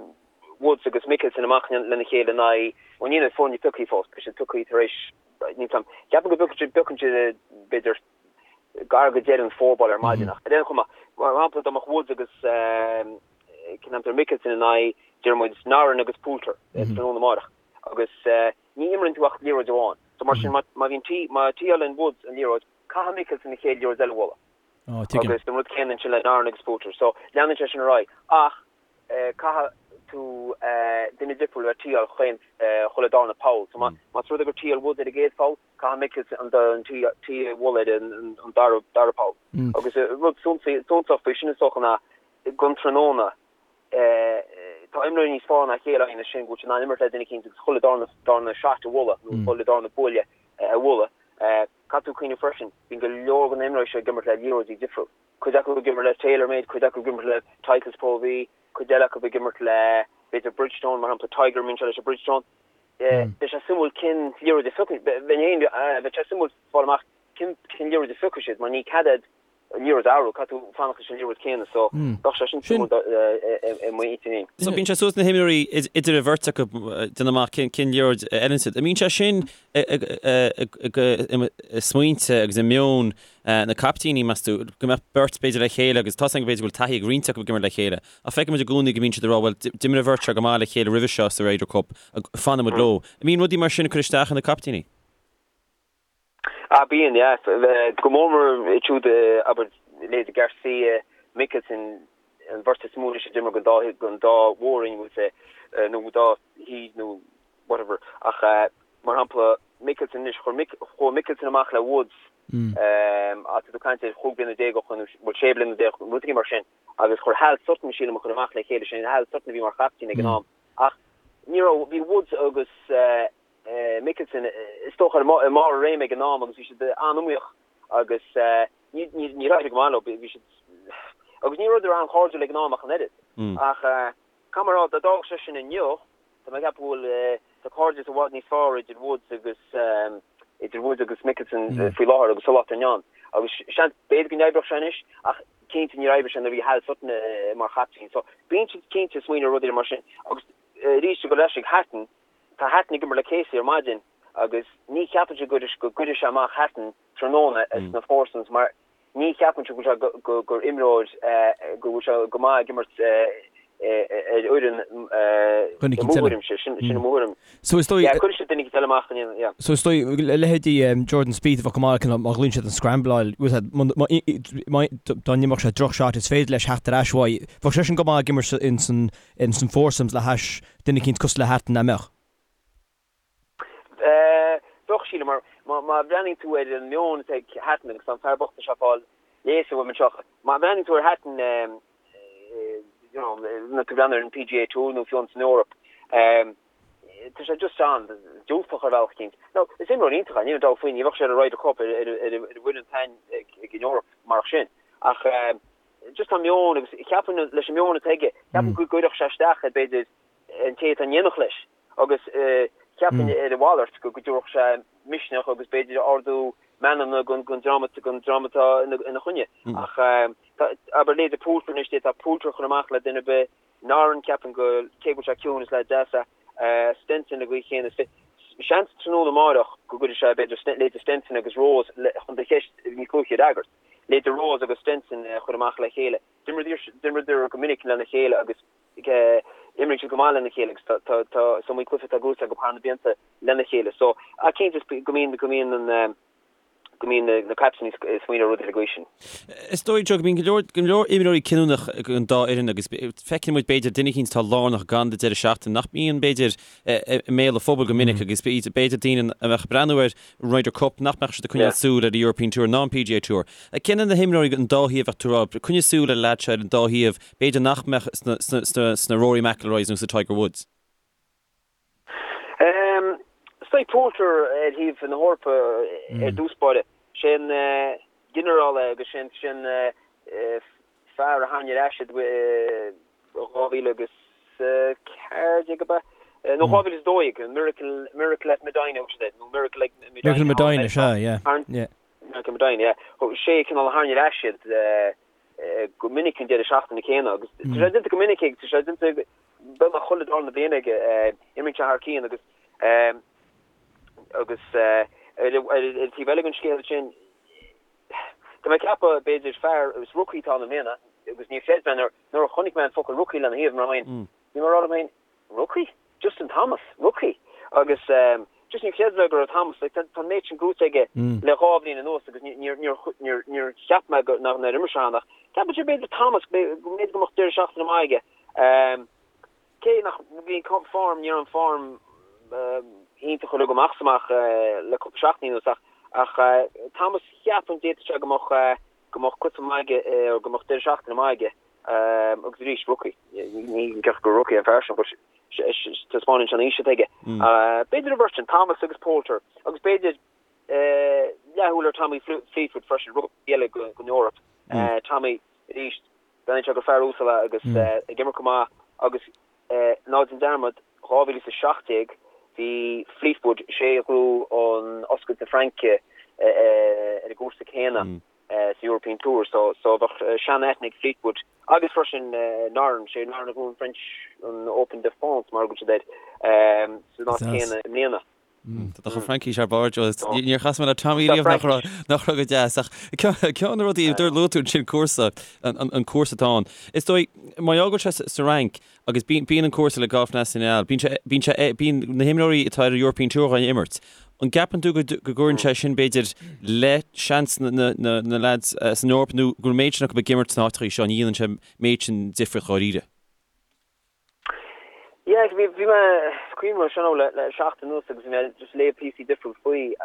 Woods agus Mickelson amach lena chéile in aghaidh, bhuel níl na foirne pioctha fós, beidh siad pioctha tar éis, níl 's a'm, ceapaim go bpiocann siad b'fhéidir gar go deireadh an four ball ar maidin ach ar aon chuma, mar shampla dá mbeadh Woods agus cén t-ainm atá air Mickelson in aghaidh, deir muid, Noren agus Poulter tráthnóna amárach agus ní imríonn tú ach liathróid amháin. So mar sin má bhíonn tí, má tí-álann Woods an liathróid, caithfidh Mickelson an chéad liathróid eile a bhualadh. Agus an rud céanna ansin le Noren agus Poulter. So leanann sé sin ar aghaidh ach caithfidh tú duine difriúil a bheith tí-áil chaon chuile darna poll. So más rud é gur tí-áil Woods ar an gcéad pholl, Caithfidh Mickelson an tí a bhualadh ar an dara poll. Agus rud suntasach faoi sin is dócha ná don tráthnóna tá imreoirí níos fearr ná a chéile againn ansin go bhfuil siad in ann imirt le duine eicínt agus chuile darna shot a bhualadh nó chuile darna buaile a bhualadh. Caithfidh tú cuimhneamh freisin, bíonn go leor de na imreoirí seo ag imirt le liathróidí difriúil. Cuid acu ag imirt le TaylorMade, cuid acu ag imirt le Titleist Pro V, cuid eile acu ag imirt le b'fhéidir Bridgestone, mar shampla Tiger, imríonn sé leis an Bridgestone. Beidh sé suimiúil cén liathróid a phiocfaidh, bheinn féin, bheadh sé suimiúil fáil amach cén cén liathróid a phiocfaidh siad mar ní cead iad. an liathróid a athrú, caithfidh tú fanacht leis an liathróid céanna so bheadh sé sin suimiúil i m'intinn féin. So bíonn sé suas na himreoirí idir an bheirt acu déanamh amach cén liathróid a fheileann siad. An mbíonn sé sin i smaointe agus i meon na caiptíní, meas tú, go mbeadh beirt b'fhéidir le chéile agus tá a fhios againn b'fhéidir go bhfuil taithí ag roinnt acu ag imirt le chéile ach feiceann muid i gcónaí go mbíonn siad ag rá bhuel d'imir an bheirt seo go maith le chéile roimhe seo sa Ryder Cup, fanfaidh muid leo. An mbíonn rudaí mar sin ag cur isteach ar na caiptíní? Ah bíonn, yeah. Go mór mór iad siúd, abair, leithéidí Garcia, Mickelson, an bheirt is mó anois a d'imir don dá, don dá mhór-roinn, we'll say, nó dá thaobh nó whatever. Ach mar shampla, Mickelson anois, chuir Mick, chuaigh Mickelson amach le Woods, tá tú ag caint ar chúig bliana déag ó shoin, nó bhuel sé bliana déag, rud éigin mar sin, agus chuir Hal Sutton, sílim, a chur amach le chéile, sin Hal Sutton a bhí mar chaiptín ag an am. Ach ní raibh, bhí Woods agus Mickelson, is dócha, i mbarr a réime ag an am agus bhí siad an-iomaíoch agus níor éirigh go maith leo, bhí siad, agus ní rabhadar an-chairdiúil ag an am ach an oiread. Ach caithfidh mé a rá, dá dtarlódh sé sin inniu, tá mé ag ceapadh go bhfuil, tá cairdeas i bhfad níos fearr idir Woods agus, idir Woods agus Mickelson faoi láthair agus sa lá atá inniu ann. Agus seans, b'fhéidir go n-oibreodh sé anois ach cinnte níor oibrigh sé nuair a bhí Hal Sutton mar chaiptín. So bíonn siad cinnte ag smaoineamh ar rudaí mar sin. Agus arís, ag dul ar ais ag Hatton, Tá Hatton ag imirt le Casey ar maidin agus ní cheapaimse go gcuirfidh sé amach Hatton tráthnóna sna foursomes mar ní cheapaimse go bhfuil sé go gur imreoir go bhfuil sé go maith ag imirt ar fhoireann i mo thuairimse, sin i mo thuairim. So is dóigh. Yeah, cuirfidh sé duine éicint eile amach in yeah. So is dóigh leithéidí Jordan Spieth a bheadh go maith acu má ghlaonn siad an scrambleáil, dá n-imreodh sé droch shot is féidir leis theacht ar ais uaidh. Bheadh seisean go maith ag imirt ins an in san foursomes le hais duine eicínt cosúil le Hatton, nach mbeadh? Bheadh, sílim, mar má bhreathnaíonn tú ar an meon atá ag Hatton, agus tá an fear bocht seo ag fáil léasadh uaim anseo, má bhreathnaíonn tú ar Hatton, you know, nuair tú ag breathnú ar an PGA Tour nó fiú san Eoraip, tá sé just an-diúltach ar bhealach eicínt. Now, is imreoir iontach é, níl aon dabht faoi, ní bheadh sé ar an Ryder Cup ar ar an bhfoireann atá ag an Eoraip marach sin. Ach just tá meon agus ceapaim leis an meon atá aige, ceapaim go gcuirfeadh sé isteach ar b'fhéidir an té atá in éineacht leis agus ceapaim ar a mhalairt go dtabharfadh sé misneach agus b'fhéidir ardú meanmna don dream atá ina choinne. Ach abair leithéidí Poulter anois, d'fhéadfá Poulter a chur amach le duine ar bith, Noren ceapaim go, cé go bhfuil sé ciúin is leaid deas é, Stenson an gcaoi chéanna. Seans tráthnóna amáireach go gcuirfidh sé b'fhéidir leithéidí Stenson agus Rose chun do cheist níos luaithe a fhreagairt. Leithéidí Rose agus Stenson a chur amach le chéile. D'imríodar go minic lena chéile agus imríonn siad go maith lena chéile agus tá tá is iomaí cluiche atá gnóthaithe acu thar na blianta lena chéile. So, ach cinnte go mbíonn go mbíonn an go mbíonn na captaein ag smaoineamh ar rudaí den gcaoi sin. Is dóigh, Joe, go mbíonn go leor go leor imreoirí cinniúnach ag an dá fhoireann agus feiceann muid b'fhéidir duine eicínt atá lárnach ag an deireadh seachtaine nach mbíonn b'fhéidir i mbéal an phobail go minic agus b'fhéidir daoine a bheadh ag breathnú ar an Ryder Cup nach mbeadh siad ag coinneáil súil ar an European Tour ná an PGA Tour. Cé na himreoirí an dá thaobh a bheadh tú ag rá, coinnigh súil ar an leaid seo ar an dá thaobh, b'fhéidir nach mbeadh sna Rory McIlroys nó sa Tiger Woods? Is dóigh Poulter ar thaobh na hEorpa ar dtús báire. Sé an ginearál é agus sé an fear a tharraing ar ais iad i 2014 ab ea? Nó 2012, Miracle, Miracle at Medina, thug siad air, nó Miracle ag Medina. Miracle Medina, sea, yeah, yeah. Miracle Medina, yeah. Sé cineál a tharraing ar ais iad go minic an deireadh seachtaine céanna agus tá sé déanta go minic aige, tá sé déanta beagnach chuile darna bliain aige, imríonn sé thar cionn agus agus ar an taobh eile den scéal sin, Tá mé ag ceapadh, b'fhéidir, fear, is rookie atá ann i mbliana, agus níor chreid mé nuair, nuair a chonaic mé an focal rookie lena thaobh, mar bhí mé ag rá liom féin, rookie? Justin Thomas, rookie? Agus just níor chreid mé go raibh Thomas, like, tá an méid sin gnóthaithe aige le dhá bhliain anuas agus níor, níor, níor, níor cheap mé go, nár imir sé ann ach ceapaim b'fhéidir Thomas, b'fhéidir go mbeadh deireadh seachtaine maith aige. Cé nach bhí form, ní raibh an form iontach uilig amach is amach le cúpla seachtain anuas ach ach Thomas cheapfainn d'fhéadfadh sé go mbeadh go mbeadh cluiche maith aige nó go mbeadh deireadh seachtaine maith aige agus arís rookie, ní ceart gur rookie an fear sin but taispeánann sé an aois atá aige. B'fhéidir an bheirt sin, Thomas agus Poulter agus b'fhéidir leathshúil ar Tommy Fleetwood freisin, rookie eile don Eoraip. Tommy arís Breathnaíonn sé gur fear uasal é agus ag imirt go maith agus ná déan dearmad, 2017 bhí Fleetwood, sé a ghnóthaigh an Oscailte na Fraince ar an gcúrsa céanna. sa European Tour so so bheadh sean-aithne ag Fleetwood agus freisin Noren, sé Noren a bhuaigh an French an Open de France mar a thugann siad air san áit chéanna i mbliana. Tá an Fhraincis thar barr Joe. Níor chas mé le Tommy riamh nach raibh nach raibh go deas ach ceann de na rudaí a luaigh tú ansin cúrsa an cúrsa atá ann. Is dóigh mar gheall go bhfuil sé sa Fhrainc agus bíonn an cúrsa Le Golf National bíonn sé bíonn sé bíonn na himreoirí atá ar an European Tour á imirt. An gceapann tú go gcuireann sé sin b'fhéidir le seans na na lads san Eoraip nó go bhfuil an méid sin acu ag imirt sna háiteacha seo ní dhéanann sé an méid sin difríocht dháiríre? Yeah, bhí bhí mé cuimhneamh air sin le le seachtain anuas agus bhí mé just ag léamh píosaí difriúil faoi.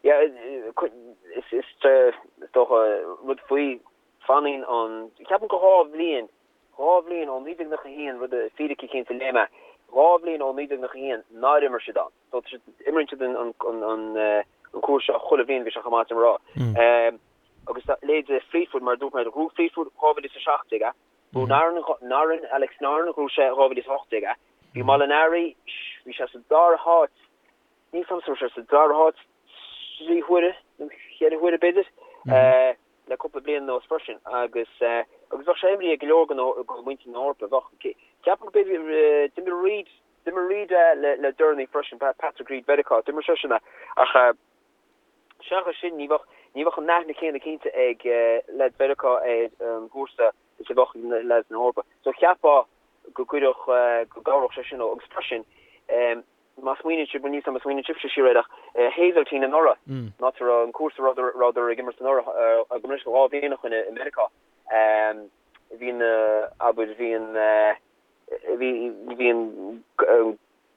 Yeah, is is is dócha rud faoi fanann an ceapaim go 2 bhliain 2 bhliain ó 1991 rud fíric eicínt a léigh mé 2 bhliain ó 1991 nár imir siad ann. So imríonn siad an an an an cúrsa seo chuile bhliain bhí sé chomh maith sin a rá. Agus leithéidí Fleetwood mar a dúirt mé bhuaigh Fleetwood 2017 é. Bhuaigh Noren, Noren, Alex Noren, bhuaigh sé 2018 é. Bhí Molinari, bhí sé sa dara háit, níl 'fhios a'm an raibh sé sa dara háit 3 huaire nó 4 huaire b'fhéidir, le cúpla bliain anuas freisin agus agus bheadh sé imrithe ag go leor de mhuintir na hEorpa. Bheadh, ceapaim go b'fhéidir, d'imir Reid, d'imir Reid é le deireanaí freisin, Patrick Reid Mheiriceá, d'imir seisean é ach seachas sin ní bheadh, ní bheadh an aithne céanna cinnte ag leaids Mheiriceá ar an gcúrsa is a bheadh ag leaids na hEorpa. So cheapfá go gcuirfeadh, go gcabhródh sé sin leo. Agus freisin, má smaoiníonn sibh, bhuel níl 's a'm má smaoiníonn sibhse siar air ach Hazeltine anuraidh, an áit a raibh an cúrsa a rabhadar ag imirt anuraidh, gabh mo leithscéal 2 bhliain ó shin i Meiriceá, bhí na, abair, bhí an, bhí, bhí an,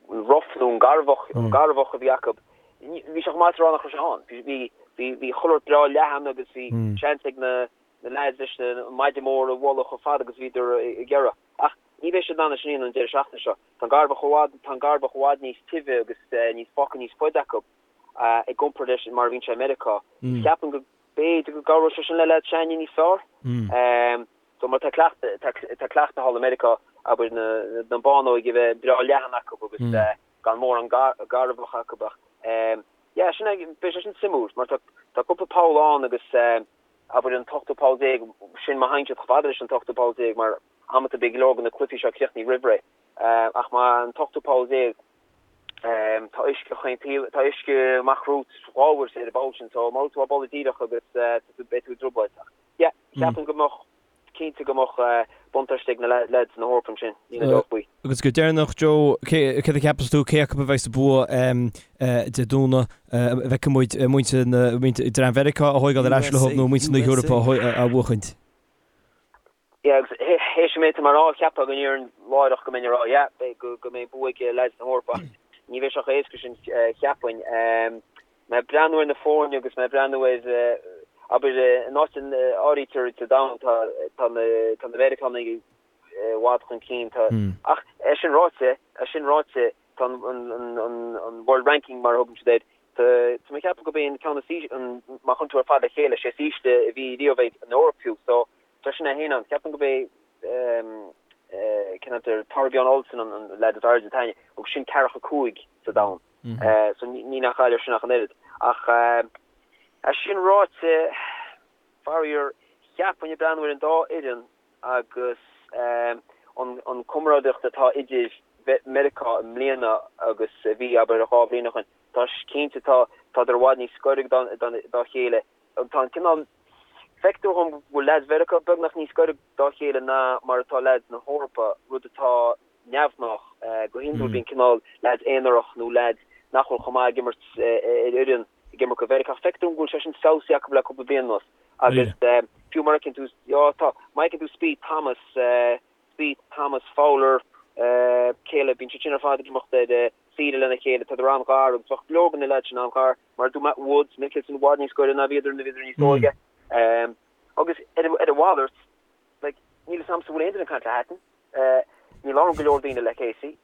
rough nó an garbhach, an garbhach a bhí acu, bhí sé chomh maith is a rá nach raibh sé ann. Bhí, bhí, bhí chuile shórt breá leathan agus bhí seans ag na, na leaids leis an maide mór a bhualadh chomh fada agus a bhíodar ag iarraidh. Ach ní bheidh siad in ann é sin a dhéanamh an deireadh seachtaine seo. Tá an garbhach i bhfad, tá an garbhach i bhfad níos tibhe agus níos foca níos faide acu i gcomparáid leis mar a bhíonn sé i Meiriceá. Ceapaim go b'fhéidir go gcabhróidh sé sin le leaids s'againne níos fearr. So mar tá cleachtadh, tá cleachtadh thall i Meiriceá, abair na, na bánóig a bheith breá leathan acu agus gan mórán garbhach acu ach yeah sin é, beidh sé sin suimiúil mar tá, tá cúpla poll ann agus abair an t-ochtú poll déag, sin má théann siad chomh fada leis an t-ochtú poll déag mar amanta beidh go leor de na cluichí seo críochnaithe roimh ré ach má an t-ochtú poll déag tá uisce chaon taobh, tá uisce amach romhat dhá uair ar an bpoll sin so má bhfuil tú á bualadh díreach agus beidh tú i dtrioblóid. Yeah, ceapaim go mbeadh, cinnte go mbeadh buntáiste ag na leaids na hEorpa ansin, níl aon dabht faoi. Agus go deireanach, Joe, céard a cheapas tú, cé acu a bheidh sa bua Dé Domhnaigh, an bhfeicfidh muid muintir na, muintir dream Mheiriceá a thóigeáil ar ais leo nó muintir na hEorpa a bhuachaint? Yeah, agus théis an méid atá mé a rá, cheapfá go ndéarfainn láithreach go mbeinn ag rá, yeah, beidh, go mbeidh bua ag leaids na hEorpa ach ní bheidh sé chomh héasca sin, cheapfainn. Mé ag breathnú ar na foirne agus mé ag breathnú ar, abair, in áit a n-áirítear sa domhan, tá, tá na, tá na Meiriceánaigh i bhfad chun cinn. Tá, ach é sin ráite, é sin ráite, tá an, an, an, an, an World Ranking mar a thugann siad air, tá, tá mé ag ceapadh gurb é an ceann is ísle, an, má chuireann tú ar fad le chéile, sé is ísle a bhí riamh ag an Eoraip fiú. So, tá sin é féin ann. Ceapaim gurb é, cén t-ainm air, Thorbjørn Olesen an, an leaid is airde atá againne, agus sin ceathracha 5 sa domhan. So ní nach áireamh sin ach an oiread. Ach é sin ráite, faraor, cheapfainn ag breathnú ar an dá fhoireann agus an comrádaíocht atá idir Meiriceá i mbliana agus a bhí, abair, 2 bhliain ó shin, tá cinnte, tá, tádar i bhfad níos gaire dá chéile. Tá an cineál, feictear dhom go bhfuil leaids Mheiriceá beagnach níos gaire dá chéile ná mar atá leaids na hEorpa, rud atá neamhghnách. Go hiondúil bíonn cineál leaids aonarach nó leaids nach bhfuil chomh maith ag imirt ar fhoireann ag imirt do Mheiriceá. Ach feictear dom go bhfuil sé sin feabhsaithe acu le cúpla bliain anuas. Agus fiú mar a fheiceann tú, já tá, má fheiceann tú Spieth, Thomas, Spieth, Thomas, Fowler, cé eile, bíonn siad sin ar fad ag imeacht ar saoire lena chéile, tádar an-ghar agus bheadh go leor de na leaids sin an-ghar. Mar a dúirt mé, Woods, Mickelson i bhfad níos gaire ná bhíodar nuair a bhíodar níos óige. Agus ar a mhalairt, like, níl 'fhios a'msa an bhfuil aon duine ag caint le Hatton. Ní labhrann go leor daoine le Casey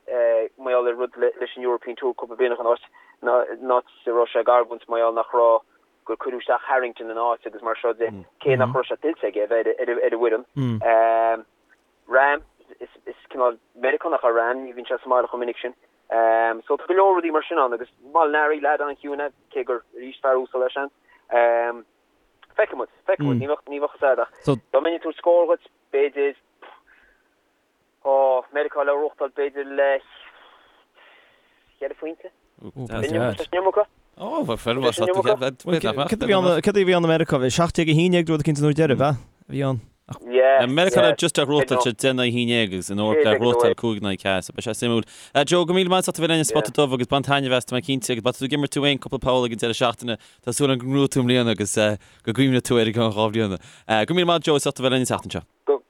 mar gheall ar rud leis an European Tour cúpla bliain ó shin, an áit a raibh sé ag argóint mar gheall nach raibh, gur cuireadh isteach Harrington ina áit agus mar seo de, cé nach raibh sé tuillte aige a bheith ar an bhfoireann. Rahm, is cineál Meiriceánach é Rahm, ní bhíonn sé sa mbaile chomh minic sin. So tá go leor rudaí mar sin ann agus Molinari, leaid an-chiúin é, cé gur arís fear uasal é seans. Feicfidh muid, feicfidh muid, ní bheadh, ní bheadh fhios a'd ach dá mbeinn ag tabhairt scór dhuit, b'fhéidir, ó, Meiriceá le gnóthachtáil b'fhéidir le cheithre phointe. Tá sin iomarca? Ó, bheadh fear maith Cad a bhí ann i Meiriceá? Bhí 17 11 rud eicínt an uair deiridh, b'ea? A bhí ann. Yeah, Meiriceá le just a ghnóthachtáil sé 10 in aghaidh 11 agus an Eoraip le gnóthachtáil 5 in aghaidh 4, so beidh sé suimiúil. Joe, go míle maith as ucht a bheith linn ar Spota Dubh agus bain taitneamh as, tá mé cinnte, agus má tá tú ag imirt tú féin cúpla poll ag an deireadh seachtaine, tá súil agam go ngnóthóidh tú i mbliana agus go gcuimhneoidh tú air i gceann 2 bhliana. Go míle maith Joe as ucht a bheith linn an tseachtain seo. Go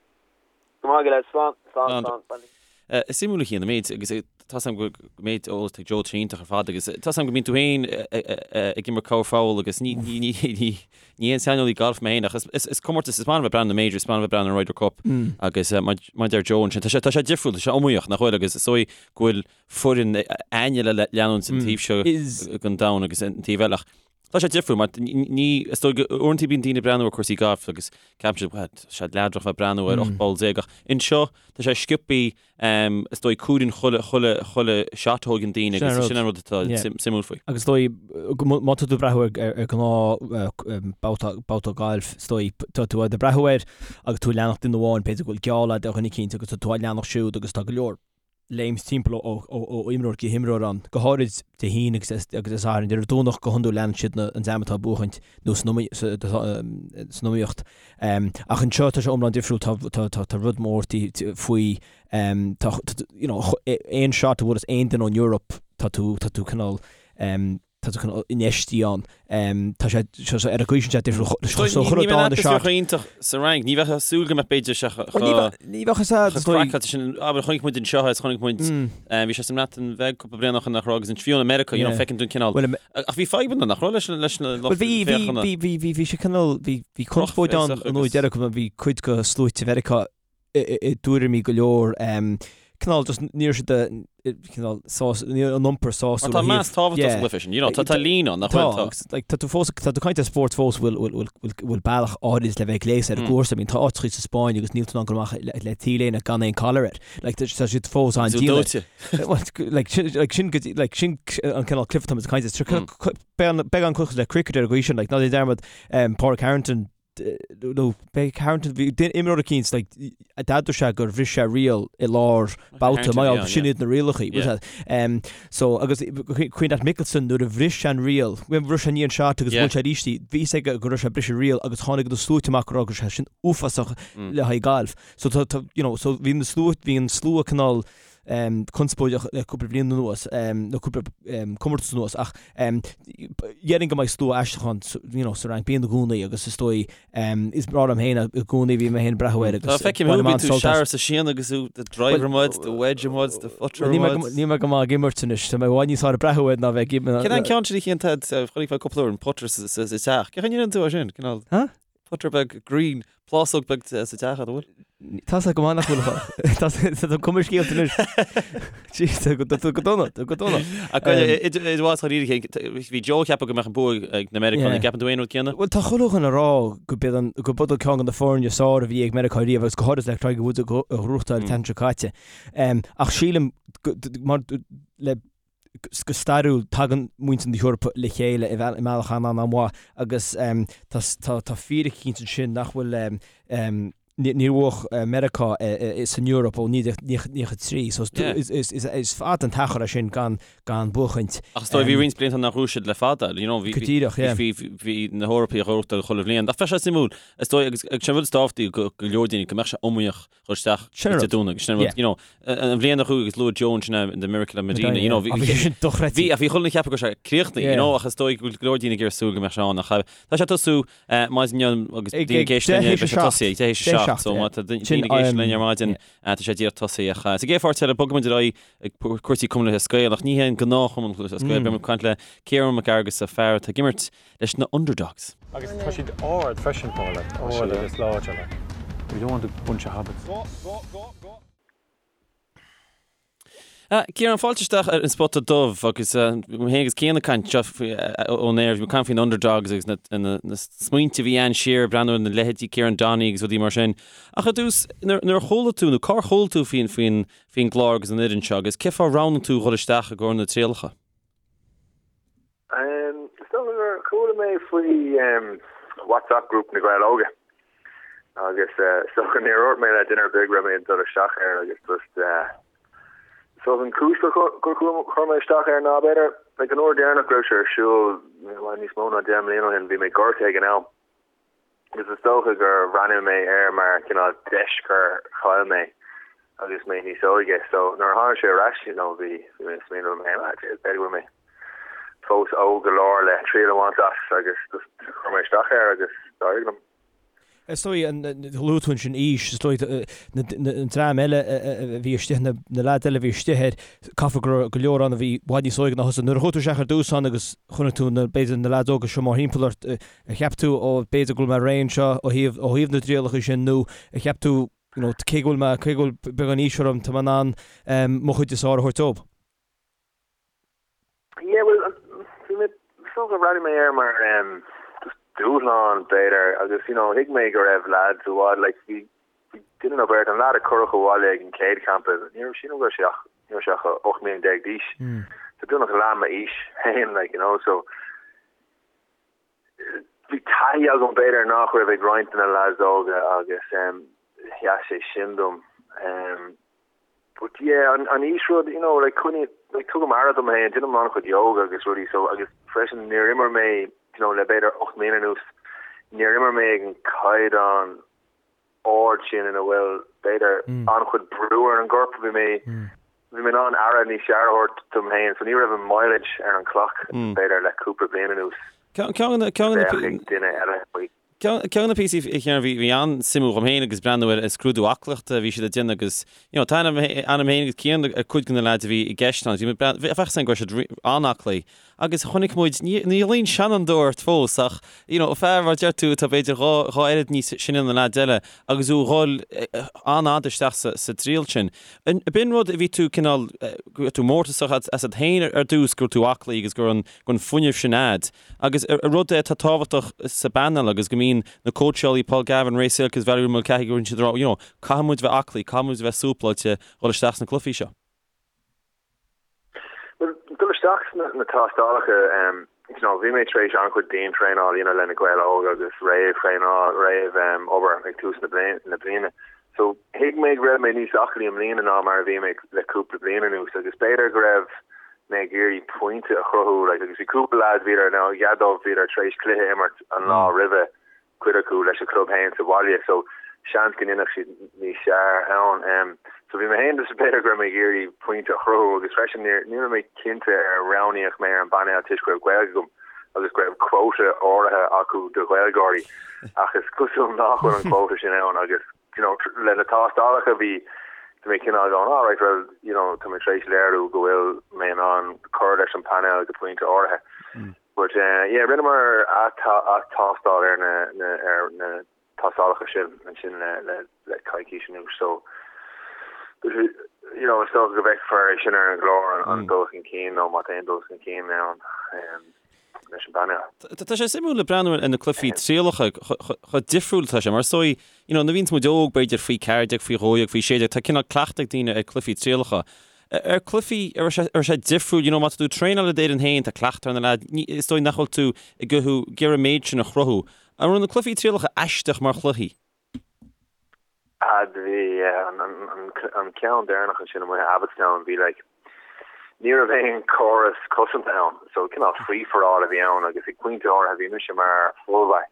maith go leith, slán, slán, slán. Is suimiúil a Chian an méid agus tá 's agam go méid eolas ag Joe tá sé iontach ar fad agus tá 's agam go mbíonn tú féin ag imirt corrpholl agus ní ní ní aon saineolaí gailf mé féin ach is is comórtas is maith liom bheith breathnú na majors, is maith liom bheith breathnú an Ryder Cup agus mar mar a deir Joe ansin tá sé tá sé difriúil, tá sé iomaíoch nach bhfuil agus is dóigh go bhfuil foireann againne le leanúint an taobh seo den domhan agus an taobh eile ach Tá sé difriúil mar ní, is dóigh go uaireanta bíonn daoine ag breathnú ar cúrsaí gailf agus ceapann siad, bhuel, tá sé leadrach bheith breathnú ar 18 poll ach anseo tá sé sciobthaí, is dóigh cuireann chuile, chuile, chuile shot a thóigeann daoine agus sin an rud atá suimiúil faoi. Agus is dóigh, má tá tú ag breathnú ar ar ghnáth babhta, babhta gailf, is dóigh, tá tú ag breathnú air agus tú ag leanacht duine amháin, b'fhéidir go bhfuil geall agat ar dhuine eicínt agus tá tú á leanacht siúd agus tá go leor léimt timpeall ó imreoir go himreoir ann, go háirid Dé hAoine agus Dé Sathairn. Ar an Domhnach go hiondúil leanann siad an dream atá ag buachaint nó san iomaíocht. Ach anseo tá sé iomlán difriúil, tá rud mór faoi, tá you know aon shot a bhuaileas aon duine ón Eoraip tá tú cineál tá tú cineál infheistithe ann. Tá sé ar an gcaoi sin sé difriúil. So chuir Ní bheadh atmaisféar chomh iontach sa Fhrainc. Ní bheadh súil go mbeadh b'fhéidir sé Ní bheadh is ea chomh craiceáilte sin. Abair chonaic muid anseo is chonaic muid bhí sé sa mBreatain Bheag cúpla bliain ó shin nach raibh agus an fiú in America you know feiceann tú an cineál ach bhí fadhbanna nach raibh leis leis na lucht féachana. Bhí bhí bhí bhí sé cineál bhí bhí conspóid ann an uair deireadh bhí cuid de sluaite Mheiriceá i dtuairimí go leor, cineál just ní raibh siad cineál sás, ní raibh an iompar sásúil. Tá meas tábhachtach sa gcluiche sin, you know, tá tá líon ann, nach bhfuil? Tá, like, tá tú fós, tá tú ag caint ar spórt fós bhfuil, bhfuil, bhfuil, bhfuil bealach áirid le bheith gléasta ar an gcúrsa, I mean, tá áiteachaí sa Spáinn agus níl tú in ann dul amach le, le T-léine gan aon collar air. Like, tá siad fós an-dian. Well, like, sin, like, sin, like, sin an cineál cluiche atá muid ag caint air. Beagán cosúil le cricket ar an gcaoi sin, like, ná déan dearmad, Pádraig Harrington, nó b'é Harrington, bhí imreoir eicínt like d'admhaigh sé gur bhris sé riail i lár babhta, mar gheall sin iad na rialacha, bhfuil yeah. Um, so agus cuimhin leat Mickelson nuair a bhris sé an riail, bhris sé an shot agus yeah. bhuail sé arís í, bhí fhios aige go raibh sé ag briseadh riail agus tháinig na sluaite amach go raibh sé sin uafásach mm. le haghaidh gailf. So tá, tá, you know, so bhí na slua, bhí an slua cineál um, conspóideach le cúpla bliain anuas, um, nó cúpla um, comórtas anuas, ach um, déarfainn go mbeidh slua aisteach ann you know, sa Fhrainc, bíonn i gcónaí agus is dóigh um, is breá liom féin i gcónaí bhí mé féin ag breathnú air agus Tá feicim thú, bíonn tú searbh sa síon agus tú the driver muid, the wedge muid, the putter muid. Níl mé go maith ag imirt anois, tá mé i bhfad níos fearr ag breathnú air ná bheith ag imirt. Cén an ceann sin a Chian Ted, chonaic mé cúpla uair an putter sa teach. Cén chaoi a ndéanann tú é sin? Cineál Huh? Putter beag green, plásóg beag sa teach, an bhfuil? Tá sé go maith nach bhfuil. Tá tá cuma scéalta anois. Jeez, tá go tá go dona, tá go dona. Ach idir mhaith dháiríre, bhí Joe ag ceapadh go mbeadh an bua ag na Meiriceánaigh. An gceapann tú aon rud céanna? Bhuel, tá chuile dhuine ag rá go b'iad an go b'iod ceann de na foirne is fearr a bhí ag Meiriceá riamh agus go háirid le Tiger Woods a ghnóthachtáil an tseachtain seo caite. Ach sílim mar le go stairiúil, tagann muintir na hEorpa le chéile i mbealach an-an-mhaith agus tá fíric eicínt ansin nach bhfuil, níor bhuaigh Meiriceá san Eoraip ó 1993 so is fada an t-achar é sin gan buachaint. Ach is dóigh bhí roinnt blianta nach raibh siad le fada, you know, bhí, Go díreach, yeah. bhí, bhí na hEorpaigh ag gnóthachtáil chuile bhliain. Ach bheadh sé suimiúil, is dóigh, agus sin an rud is tábhachtaí go leor daoine, go mbeadh sé iomaíoch dhul isteach Sin Dé Domhnaigh. Sin an rud, you know, an bhliain a chuaigh agus luaigh Joe ansin the Miracle of Medina, you know, bhí bhí sin dochreidte. Bhí, ach bhí chuile dhuine ag ceapadh go raibh sé críochnaithe, you know, ach is dóigh go bhfuil go leor daoine ag iarraidh súil go mbeadh sé ann ach tá sé ag tosú maidin inniu agus daoine ag éisteacht linn, beidh sé tosaithe ag deich théis a 7, so má tá daoine ag éisteacht linn ar maidin, tá sé díreach tosaithe ach sa gcéad pháirt eile bogfaidh muid ar aghaidh ag cúrsaí Cumann Lúthchleas Gael ach ní hé an gnáth-Chumann Lúthchleas Gael, beidh muid ag caint le Ciarán Mac Fhearghusa, fear atá ag imirt leis na Underdogs. Agus tá siad ard freisin, Paula, ard agus láidir like. We don't want a bunch of hobbits. Ciarán, fáilte isteach ar an Spota Dubh agus mé féin agus Cian ag caint seo ón aer, bhí muid ag caint faoin Underdogs agus na smaointe a bhí ann siar, breathnú ar na leithéidí Kieran Donaghy agus rudaí mar sin. Ach ar dtús, nuair a chuala tú, nó cár chuala tú faoin faoin gclár agus an fhoireann seo agus cén fáth ar roghnaigh tú dhul isteach i gcomhair na trialacha? Is dócha gur chuala mé faoi. WhatsApp group na Gaeil Óga agus is dócha níor dhúirt mé le duine ar bith go raibh mé ag dul isteach air agus just so an chúis gur chuir mé isteach air ná b'fhéidir like an uair deireanach go raibh sé ar siúl níos mó ná 10 mbliana ó shin bhí mé gortaithe ag an am agus is dócha gur bhreathnaigh mé air mar cineál deis gur chaill mé agus mé níos óige. So nuair a tháinig sé ar ais, you know, bhí bhí mé ag smaoineamh liom féin, ah, b'fhéidir go bhfuil mé fós óg go leor le triail a bhaint as agus just chuir mé isteach air agus d'éirigh liom. Is dóigh, luaigh tú ansin aois, is dóigh an dream eile a bhí istigh, na leaids eile a bhí istigh air, caithfidh go raibh go leor ann a bhí i bhfad níos óige ná thusa. Nuair a chuaigh tú isteach ar dtús ann agus chonaic tú na, b'fhéidir na leaids óga seo mórthimpeall ort, ar cheap tú, ó, b'fhéidir go bhfuil mé réidh anseo ó thaobh, ó thaobh na dtrialacha sin nó ar cheap tú, you know, cé go bhfuil mé, cé go bhfuil beagán aois orm, tá mé in ann mo chuid is fearr a thabhairt dóibh? Yeah, well, bhí mé, is dócha, bhreathnaigh mé air mar just dúshlán, b'fhéidir, agus, you know, thuig mé go raibh lads i bhfad, like, bhí, bhí duine nó beirt, an lad a cuireadh abhaile ag an chéad champa, ní raibh, sílim go raibh sé ach, ní raibh sé ach 18 mbliana d'aois, so beagnach leath m'aois féin, like, you know, so, bhí taithí agam b'fhéidir nach raibh ag roinnt de na lads óga agus sheas sé sin dom. But yeah, an aois rud, you know, like coinní, like tugaim aire dom féin, déanaim an-chuid yoga agus rudaí so agus freisin níor imir mé, you know, le b'fhéidir 8 mbliana anuas, níor imir mé ag an caighdeán ard sin ina bhfuil, b'fhéidir, an-chuid brú ar an gcorp. Bhí mé, bhí mé in ann aire níos fearr a thabhairt dom féin, so ní raibh an mileage ar an clock, b'fhéidir, le cúpla bliain anuas. Ceann de na, duine eile faoi. Ceann de na píosaí a Chiaráin, bhí, bhí an-suimiúil dhom féin agus breathnú ar an scrúdú aclaíochta a bhí siad ag déanamh agus, you know, tá ainm, ainm féin agus Cian ar cuid de na leaids a bhí i gceist ann, bhí mé breathnú, bheadh a fhios go raibh siad an-aclaí. Agus chonaic muid, ní ghlaofainn seanfhondúir ort fós, ach, you know, fear, mar a deir tú, atá b'fhéidir dhá, dhá oiread níos sine ná na leaids eile, agus thú a dhul an-fhada isteach sa, sa dtriail sin. An, b'in rud a bhí tú cineál, go raibh tú mórtasach asat féin ar dtús, go raibh tú aclaí agus go raibh an, go raibh an fuinneamh sin a'd. Agus ar rud é atá tábhachtach sa bpainéal agus go mbíonn na cóitseálaí Paul Gavin, Ray Silke agus Valerie Mulcahy, go mbíonn siad ag rá, you know, caithfidh muid bheith aclaí, caithfidh muid bheith súpláilte dhul isteach sna cluichí seo. Bhuel, dul isteach sna na tástálacha, you know, bhí mé tar éis an-chuid diantraenáil a dhéanamh le na Gaeil Óga agus réamhthraenáil, réamh obair ag tús na na bliana. So, thuig mé go raibh mé níos aclaí i mbliana ná mar a bhí mé le cúpla bliain anuas agus b'fhéidir go raibh mé ag iarraidh pointe a chruthú, like, agus bhí cúpla lads, bhíodar, now, chead dóibh, bhíodar tar éis cluiche a imirt an lá roimhe, cuid acu leis an chlub féin sa bhaile so seans go ndéanfadh siad níos fearr ann. So bhí mé féin just b'fhéidir go raibh mé ag iarraidh pointe a chruthú agus freisin ní ní raibh mé cinnte ar roghnaíodh mé ar an bpainéal toisc go raibh Gaeilge agam agus go raibh quota áirithe acu do Ghaeilgeoirí ach is cosúil nach bhfuil an quota sin ann agus you know le na tástálacha bhí bhí mé cineál going all right well you know tá mé tar éis léiriú go bhfuil mé in ann cur leis an bpainéal go pointe áirithe. But yeah, rinneamar ath-tástáil ar na na ar na tástálacha sin ansin le le le coicís anuas so you know is dócha go bhfeicfear é sin ar an gclár an an dul chun cinn nó má tá aon dul chun cinn ann leis an bpainéal. Tá sé suimiúil le breathnú ar na cluichí trialacha chomh difriúil atá sé mar is dóigh you know nuair a bhíonns muid óg b'fhéidir faoi 14, faoi 12, faoi 16 tá cineál cleachtadh ag daoine ar cluichí trialacha. Ar cluichí, an raibh sé, an raibh sé difriúil, you know, má tá tú ag traenáil le d'fhoireann féin, tá cleachtadh ar na leaids, ní, is dóigh nach bhfuil tú ag gothú, ag iarraidh an méid sin a chruthú. An raibh na cluichí trialacha aisteach mar chluichí? Ah, bhí, yeah, an, an, an, an ceann deireanach ansin amuigh i Abbotstown, bhí like, ní raibh aon córas cosanta ann, so cineál free for all a bhí ann agus ag pointe áirithe bhí mise mar fullback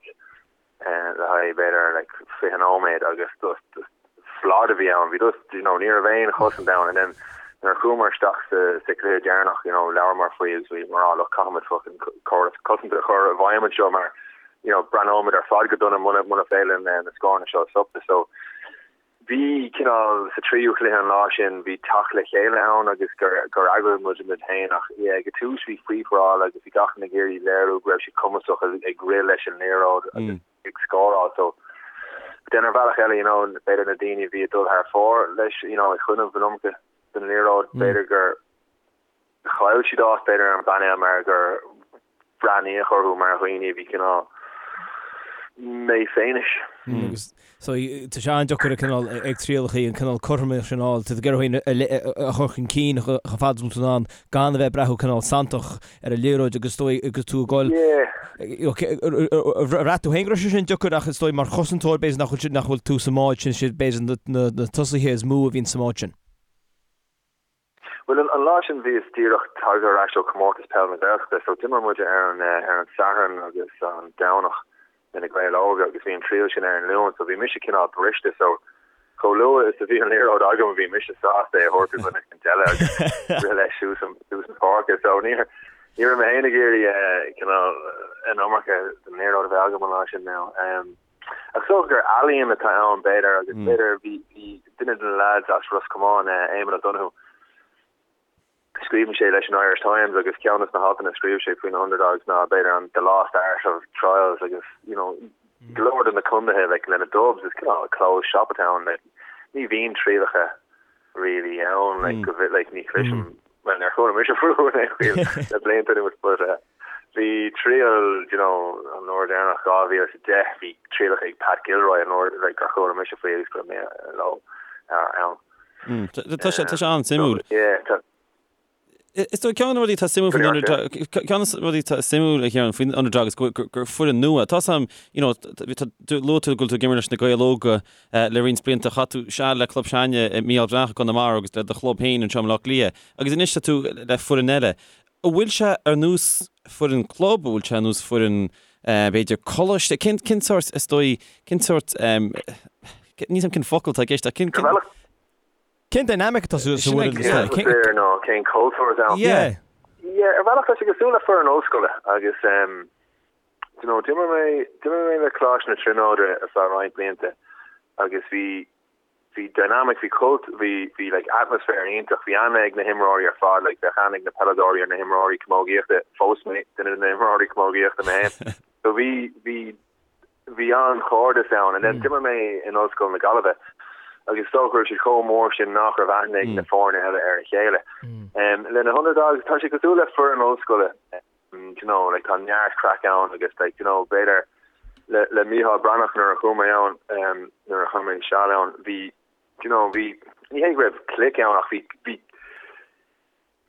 le haghaidh b'fhéidir like 20 nóiméad agus just just slad a bhí ann. Bhí just you know ní raibh aon chosaint ann and then nuair a chuamar isteach sa sa chluiche deireanach you know labhramar faoi agus bhí mar ah look caithfimid fucking córas cosanta a chur i bhfeidhm anseo mar you know breathnóimid ar fad go dona muna muna féidir linn na scóranna seo a stopadh so Bhí cineál, sa tríú chluiche an lá sin, bhí teacht le chéile ann agus gur gur eagraigh muid muid féin ach yeah ag an tús bhí free for all agus bhí gach duine ag iarraidh léiriú go raibh siad cumasach ag rith leis an liathróid agus ag scóráil so but then ar bhealach eile you know b'fhéidir na daoine a bhí ag dul thar fóir leis you know ag coinneáil an iomarca den liathróid b'fhéidir gur chaill siad áit b'fhéidir ar an bpainéal mar gur breathnaíodh orthu mar dhaoine a bhí cineál méifhéinis. Agus so tá sé an-deacair ag cineál ag trialachaí an cineál cothromaíocht sin a fháil, tá tú ag iarraidh thú féin a chur chun cinn chomh fada is atá tú in ann gan a bheith ag breathnú cineál santach ar an liathróid agus is dóigh agus tú ag goil bhraith tú féin go raibh sé sin deacair ach is dóigh mar chosantóir b'fhéidir nach bhfuil nach bhfuil tú sa mbád sin siad b'fhéidir na na tosaithe is mó a bhíonn sa mbád sin. Bhuel, an lá sin bhíos díreach tagtha ar ais ó Chomórtas Peil na Gaeltachta, so d'imir muid ar an ar an Satharn agus an Domhnach le na Gaeil Óga agus bhí an triail sin ar an Luan, so bhí mise cineál briste, so chomh luath is a bhí an liathróid agam bhí mise sásta é a thabhairt do dhuine éicint eile agus rith leis suas an suas an pháirc, so ní ní raibh mé féin ag iarraidh cineál an iomarca den liathróid a bheith agam an lá sin now. Ach is dócha gur ealaíon atá ann, b'fhéidir, agus b'fhéidir bhí bhí duine de na leaids as Ros Comáin, Éamon O'Donoghue, scríobhann sé leis an Irish Times agus ceann de na haltanna a scríobh sé faoi na Underdogs ná b'fhéidir an the lost art of trials agus you know go leor de na contaetha like le na Dubs is cineál closed shop atá ann like ní bhíonn trialacha really ann like go bhfi like ní chloisim bhuel níor chuala mise fúthu in aon chaoi le blianta anuas but uh, Bhí triail, you know, an uair deireanach 2010, bhí trialacha ag Pat Gilroy an uair like gur chuala mise faoi agus go raibh mé leo ann. Tá sé tá sé an-suimiúil. Yeah, tá. Is dóigh ceann de na rudaí atá suimiúil faoin Underdog, ceann de na rudaí atá suimiúil a Chiaráin faoin Underdog is gur gur foireann nua. Tá sam, you know, tá luaigh tú go bhfuil tú ag imirt leis na Gaeil Óga le roinnt blianta, chaith tú seal le club s'againne Mícheál Breathnach i gConamara agus le do chlub féin anseo i mBaile Átha Cliath agus anois tá tú le foireann eile. An bhfuil sé ar nós foireann club, an bhfuil sé ar nós foireann b'fhéidir coláiste? Cén cén sórt is dóigh, cén sórt níl a fhios agam cén focal atá i gceist ach cén cén Cén dynamic atá sa sa bhfoireann is dóigh? Cén atmaisféar nó cén cultúr atá ann? Yeah. Yeah, ar bhealach tá sé cosúil le foireann ollscoile agus um, you know, d'imir mé d'imir mé le Coláiste na Tríonóide ar feadh roinnt blianta agus bhí bhí dynamic, bhí cult, bhí, bhí like atmaisféar iontach, bhí aithne ag na himreoirí ar fad, like bheadh aithne ag na peileadóirí ar na himreoirí camógaíochta, phós mé duine de na himreoirí camógaíochta mé féin. So bhí, bhí, bhí an-chairdeas ann and then d'imir mé in Ollscoil na Gaillimhe agus is dócha go raibh siad chomh mór sin nach raibh aithne ag na foirne eile ar a chéile. Um, le na Underdogs, tá sé cosúil le foireann ollscoile. do you know, like tá neart craic ann agus like, do you know, b'fhéidir le, le Mícheál Breathnach nuair a chuaigh mé ann, um, nuair a chaith mé seal ann, bhí, do you know, bhí, ní hé go raibh clique ann ach bhí, bhí,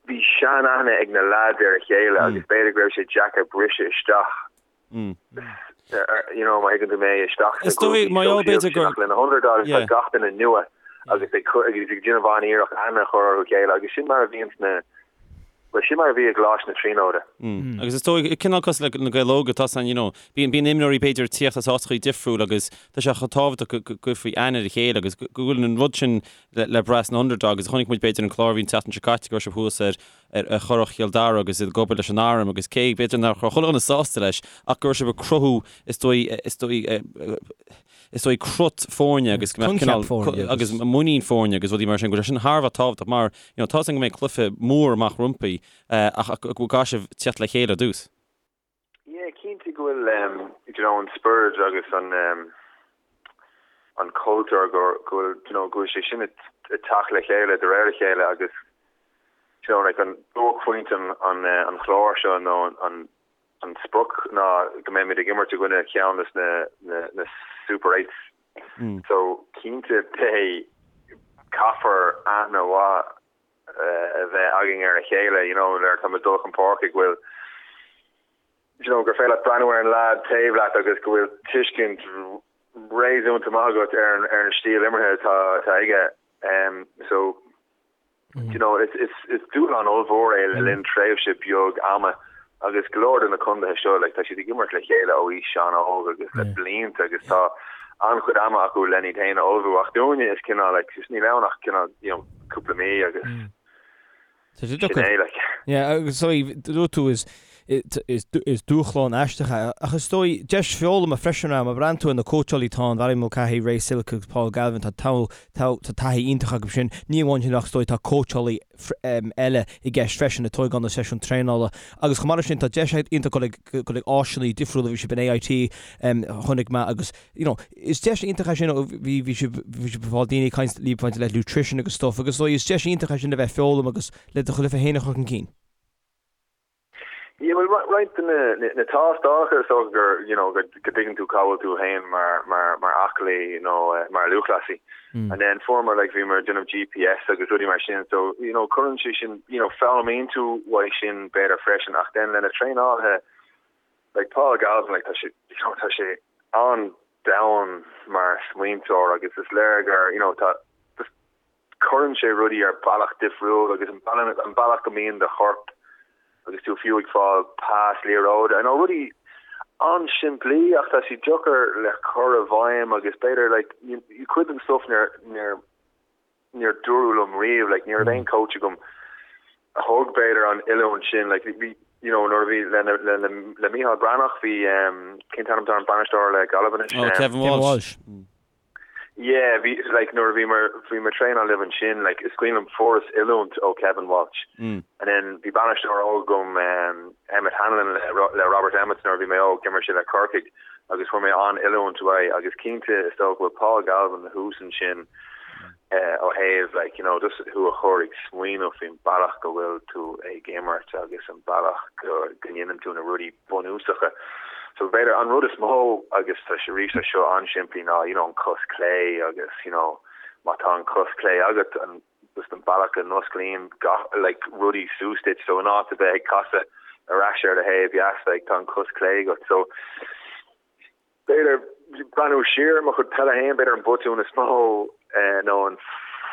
bhí sean-aithne ag na lads ar a chéile mm. agus b'fhéidir go raibh sé deacair briseadh isteach mm. you know, má thuigeann tú mé isteach sna grúpaí sóisialta sin ach le na Underdogs tá gach duine nua agus ag agus ag déanamh an-iarracht aithne a chur orthu chéile agus sin mar a bhíonn sna Bhuel, sin mar a bhí i gColáiste na Tríonóide. Agus is dóigh, cineál cosúil le na Gaeil Óga, tá san, you know, bíonn, bíonn imreoirí b'fhéidir ag tíocht as áiteachaí difriúil agus tá sé chomh tábhachtach go, go gcuirfí aithne ar a chéile agus go, go bhfuil an rud sin le, le brath sna Underdogs. Chonaic muid b'fhéidir an clár a bhí an tseachtain seo caite go raibh sibh thuas ar, ar, ar Churrach Chill Dara agus iad ag obair leis an arm agus cé, b'fhéidir nach raibh chuile dhuine sásta leis ach go raibh sibh ag cruthú, is dóigh, is dóigh, is dóigh crut foirne agus go mbeadh cineál agus muinín foirne agus rudaí mar sin, go bhfuil sé sin thar a bheith tábhachtach mar you know, tá a fhios agam go mbeidh cluiche mór amach rompu ach go gcaithfidh sibh teacht le chéile ar dtús. Yeah, cinnte go bhfuil um, you know, an spiorad agus an um, an cultúr go go bhfuil you know, go bhfuil sé sin ag teacht le chéile de réir a chéile agus you know, like an buaicphointe an, an, eh, an chláir seo nó an, an An sprioc ná go mbeimid ag imirt i gcoinne cheann des na na Super Eights. So cinnte beidh, caithfear aithne mhaith a bheith againn ar a chéile, you know, nuair atá muid ag dul chun páirce go bhfuil, you know, gur féidir leat breathnú ar an leaid taobh leat agus go bhfuil tuiscint réasúnta maith agat ar an ar an stíl imeartha atá atá aige. So You know, is, is, is dúshlán ollmhór é le linn tréimhse beag ama agus go leor de na condaetha seo, like, tá siad ag imirt le chéile ó aois an-óg agus le blianta agus tá an-chuid ama acu len iad féin a ullmhú ach dúinne is cineál, like, just níl ann ach cineál, you know, cúpla mí agus sin é, like. Yeah, agus so, dúirt tú is Is dúshlán aisteach é, ach is dóigh, deis foghlama freisin é. Má bhreathnaíonn tú ar na cóitseálaí atá ann, Barry Mulcahy, Ray Silke agus Paul Galvin, tá taithí iontach acu sin. Ní amháin sin ach is dóigh tá cóitseálaí eile i gceist freisin ag tógáil na seisiún traenála. Agus chomh maith leis sin tá deis iontach dul ag dul ag áiseanna difriúla, bhí sibh in AIT chonaic mé agus you know is deis iontach é sin, bhí bhí sibh bhí sibh ag fáil daoine ag caint libh maidir le nutrition agus stuff agus is dóigh is deis iontach é sin le bheith ag foghlaim agus le do chluiche féin a chur chun cinn. Yeah, well, roinnt de na tástálacha is dócha gur, you know, go dtuigeann tú cá bhfuil tú féin mar, mar, mar aclaí nó mar lúthchleasaí. And then fuaireamar, like, bhíomar ag déanamh GPS agus rudaí mar sin, so, you know, cuireann sé sin, you know, foghlaimíonn tú uaidh sin b'fhéidir freisin ach then le na traenálaithe, like Paul Galvin, like, tá sé, you know, tá sé an-domhain mar smaointeoir agus is léir gur, you know, tá, just, cuireann sé rudaí ar bealach difriúil agus an bealach go mbíonn do chorp agus tú fiú ag fáil pas liathróide, I know rudaí an-simplí ach tá siad deacair le cur i bhfeidhm agus b'fhéidir like cuid den stuff níor níor níor dúradh liom riamh like ní raibh aon coach agam a thug b'fhéidir an oiliúint sin like bhí you know nuair a bhí le le le le Micheál Breathnach bhí um, cén t-ainm atá ar an bainisteoir le Gaillimh anois? Oh, Kevin Walsh. Yeah, bhí, like, nuair a bhíomar, bhíomar traenáil libh ansin, like, is cuimhin liom fuaireas oiliúint ó Kevin Walsh. Mm. And then bhí bainisteoir óg agam, um, Emmet Hanlon le, le Robert Emmet nuair a bhí mé óg, d'imir sé le Corcaigh agus fuair mé an-oiliúint uaidh agus cinnte is dócha go bhfuil Paul Galvin thuas ansin eh, ó thaobh, like, you know, just thú a chur ag smaoineamh faoin bealach go bhfuil tú ag imirt agus an bealach go, go ndéanann tú na rudaí bunúsacha. So b'fhéidir an rud is mó agus tá sé arís tá seo an-simplí ná you know an cos clé agus you know má tá an cos clé agat an just an bealach go n-osclaíonn gach like rudaí suas duit so in áit a bheith ag casadh ar ais ar do thaobh dheas like tá an cos clé agat so B'fhéidir, breathnú siar ar mo chuid peile féin, b'fhéidir an botún is mó nó an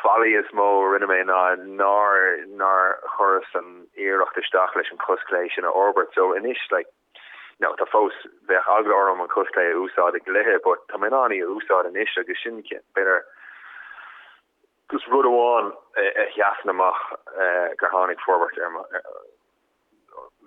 faillí is mó a rinne mé ná nár nár chuireas an iarracht isteach leis an cos clé sin a fhorbairt. So anois like, you know, tá fós, bheadh eagla orm an cos clé a úsáid i gcluiche but tá mé in ann í a úsáid anois agus sin b'fhéidir just rud amháin a sheasann amach gur tháinig forbairt ar mo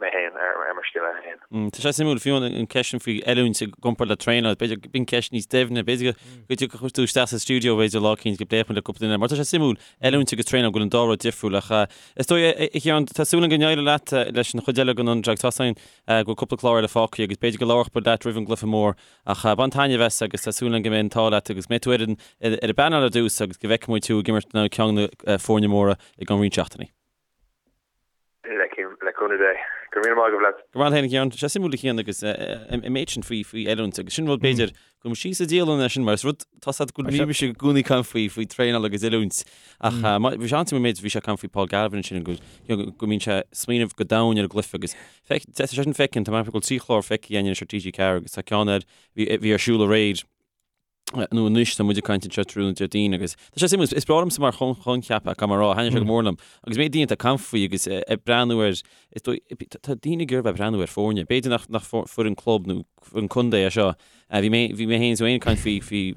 mé féin, ar mo scil féin. Tá sé suimiúil, fiú an ceist sin faoi oiliúint i gcomparáid le traenáil, b'fhéidir b'in ceist níos doimhne, b'fhéidir go dtiocfadh tú isteach sa stiúideo b'fhéidir lá eicínt go bpléifeadh muid le cúpla duine, mar tá sé suimiúil, oiliúint agus traenáil, go bhfuil an dá rud difriúil ach is dóigh, a Chiaráin, tá súil agam go n-éireoidh leat leis an chuid eile den Underdogs, tá a fhios againn go bhfuil cúpla clár eile fágtha agus b'fhéidir go labharfadh muid leat roimh an gcluiche mór ach bain taitneamh as agus tá súil agam go mbeidh an t-ádh leat agus go mbeidh tú ar an ar an bpainéal ar dtús agus go bhfeicfidh muid thú ag imirt in aghaidh ceann de na foirne móra i gceann roinnt seachtainí. Le cúnamh Dé. Go raibh míle maith agaibh lads. Go raibh maith agat a Chiaráin. Tá sé suimiúil a Chian agus an méid sin faoi faoi oiliúint agus sin rud b'fhéidir go mbeidh síos sa dialann é sin mar is rud tá sé go bhí mise i gcónaí ag caint faoi faoi traenáil agus oiliúint ach bhí sé an-suimiúil an méid bhí sé ag caint faoi Paul Galvin ansin go go mbíonn sé ag smaoineamh go domhain ar an gcluiche agus feic tá sé sin feicthe tá mé ag dul trí chlár feicthe againn anois ar TG4 agus tá ceann air bhí bhí ar siúl aréir nó anois tá muid ag caint anseo tráthnóna Déardaoin agus tá sé suimiúil, is breá liomsa mar choincheap é, caithfidh mé a rá, thaitnigh sé go mór liom. Agus mé daoine ag caint faoi agus ag breathnú ar, is dóigh, tá daoine ag iarraidh bheith ag breathnú ar foirne, b'fhéidir nach nach foireann club nó foireann contae é seo. Bhí mé bhí mé féin is ag caint faoi faoi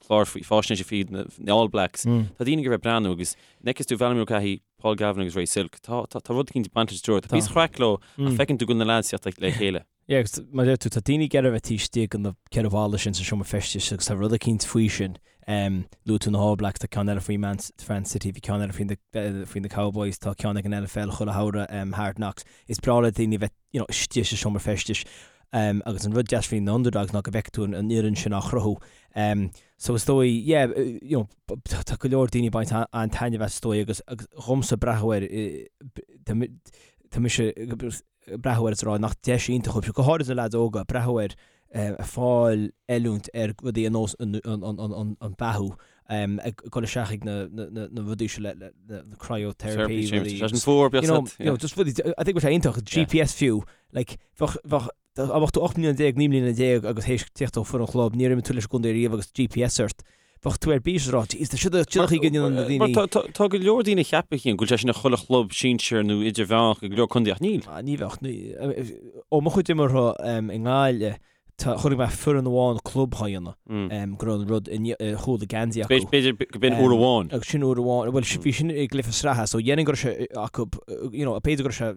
clár faoi faisnéise faoi na All Blacks. Tá daoine ag iarraidh bheith ag breathnú agus an bhfeiceann tú Valerie Mulcahy, Paul Galvin agus Ray Silke, tá tá tá rud eicínt ag baint leis an triúr, tá píosa craic leo ach feiceann tú go bhfuil na lads ag teacht le chéile. Yeah, agus mar a deir tú, tá daoine ag iarraidh a bheith taobh istigh de na ceithre bhalla sin sa seomra feistis agus tá rud eicínt faoi sin. Luaigh tú na All Blacks, tá ceann eile faoi Man, Man City, bhí ceann eile faoi na, faoi na Cowboys, tá ceann ag an NFL chuile shamhradh, Hard Knocks. Is breá le daoine a bheith, you know, istigh sa seomra feistis. Agus an rud deas faoi na Underdogs ná go bhfeiceann tú an, an fhoireann sin á chruthú. So is dóigh, yeah, you know, tá go leor daoine ag baint an-taitneamh as is dóigh agus, agus dhomsa breathnú air, tá, tá mise, breathnú air is a rá nach deis iontach dóibh, go háirid na leaids óga, breathnú air ag fáil oiliúint ar rudaí ar nós an beathú, ag dul isteach ag na rudaí seo le na cryotherapy rudaí. Sé sin fuar, you know, you know, just rudaí, I think bheadh sé iontach, GPS fiú, like, bheadh, bheadh, dá mbeadh tú 18 mbliana, 19 mbliana agus théis tíocht ó foireann chlub, níor imir tú leis an gcontae riamh agus GPS ort, Bheadh tú ar bís ag rá, Jeez, tá siad ag siad ag déanamh na daoine. Mar tá tá go leor daoine a cheapann a Chian go bhfuil sé sin ag chuile chlub sinsir nó idirmheánach i go leor contae ach níl. Ah, ní bheadh. Ó mo chuid imeartha i nGaillimh, tá chonaic mé foireann amháin club á dhéanamh, go raibh an rud i chúl a geansaí acu. B'fhéidir go b'in uair amháin. Agus sin uair amháin, bhuel bhí sin i gcluiche sraithe, so dhéarfainn go raibh sé acu, you know, b'fhéidir go raibh sé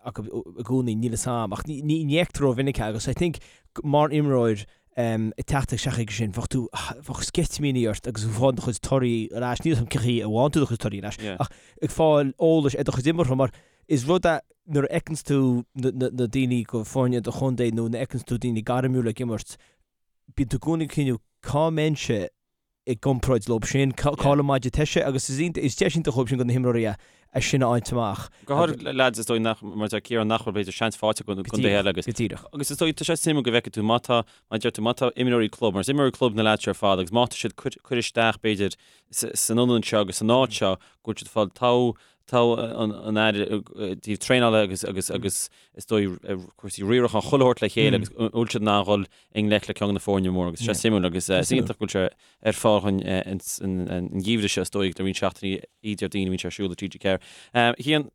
acu i gcónaí, níl 'fhios a'm, ach ní fheictear rómhinic é agus I think mar imreoir ag teacht isteach chuige sin, bheadh tú, bheadh sceitimíní ort agus ag fáil do chuid torthaí ar ais, níl 'fhios a'm cén chaoi a bhfaigheann tú do chuid torthaí ar ais, ach ag fáil eolais ar do chuid imeartha mar is rud é nuair a fheiceanns tú na daoine go foirne do chontae nó nuair a fheiceanns tú daoine gairmiúla ag imirt, bíonn tú i gcónaí ag cuimhniú cá mbeinnse. i gcomparáid leo sin, cá bhfuil an maide toise agus is deis iontach dhóibh sin do na himreoirí é sin a fháilt amach. Go háirid lads is dóigh nach, mar deir Ciarán, nach bhfuil b'fhéidir seans faighte acu i gcontaetha eile agus. Go díreach. Agus is dóigh, tá sé suimiúil go bhfeicfidh tú má tá, mar deir tú, má tá imreoirí club, mar is imreoirí club na lads seo ar fad agus má tá siad curtha isteach b'fhéidir san ionad seo agus san áit seo go bhfuil siad ag fáil togha togha an aire i dtaobh traenála agus agus agus is dóigh cúrsaí riaracháin chuile shórt le chéile agus an bhfuil siad in ann dhul i ngleic le ceann de na foirne móra agus sé suimiúil agus is iontach go bhfuil sé ar fáil dhúinn an geimhreadh seo is dóigh le roinnt seachtainí Déardaoin a bhíonn sé ar siúl ar TG4. Cian,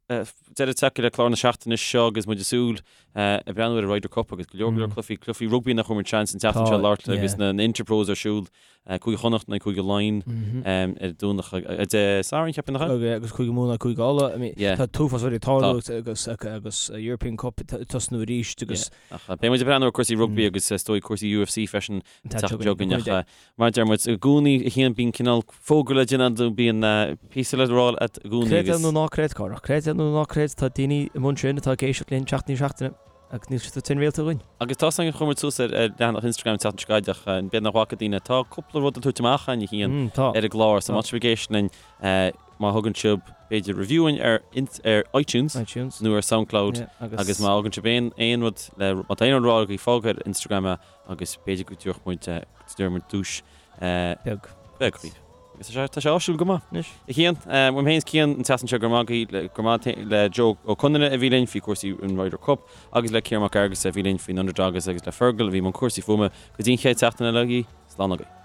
deireadh tagtha le clár na seachtaine seo agus muid ag súil ag breathnú ar an Ryder Cup agus go leor go leor cluichí, cluichí rugbaí nach bhfuair muid seans an tseachtain seo labhairt agus na Interpros ar siúl Cúige Chonnacht in aghaidh Cúige Laighean ar Domhnach ar Dé Sathairn, cheapfainn, nach ea? Agus Cúige Mumhan Cúige Uladh. I mean, tá an t-uafás rudaí ag tarlú agus agus European Cup ag tosnú arís agus. Ach beidh muid ag breathnú ar cúrsaí rugbaí agus is dóigh cúrsaí UFC freisin an tseachtain seo chugainn. Ach mar a deir muid i gcónaí a Chian bíonn cineál fógra le déanamh nó bíonn píosa le rá agat i gcónaí agus. Creid é nó ná creid, Cárthach, creid é nó ná creid, tá daoine amuigh ansin atá ag éisteacht linn seachtain i ndiaidh seachtaine. Agus níl siad ag réalta againn. Agus tá san chuir muid suas ar leathanach Instagram an tseachtain seo caite ach b'fhéidir nach bhfaca daoine. Tá cúpla rud le tabhairt amach againn a Chian ar an gclár so má tá sibh ag éisteacht linn má thugann sibh b'fhéidir review dhúinn ar ar iTunes iTunes nó ar Soundcloud agus má thugann sibh aon aon rud le má tá aon rud le rá agaibh fág ar Instagram é agus b'fhéidir go dtabharfaidh muid go dtabharfaidh muid duais beag beag dhaoibh. Agus tá sé, tá sé áisiúil go maith. Anois. A Chian, uaim féin is Cian an tseachtain seo go raibh maith agaibh, go raibh maith le Joe Ó Conaire a bhí linn faoi chúrsaí an Ryder Cup agus le Ciarán Mac Fhearghusa a bhí linn faoin Underdogs agus le Fergal a bhí i mbun cúrsaí fuaime. Go dtí an chéad seachtain eile agaibh, slán agaibh.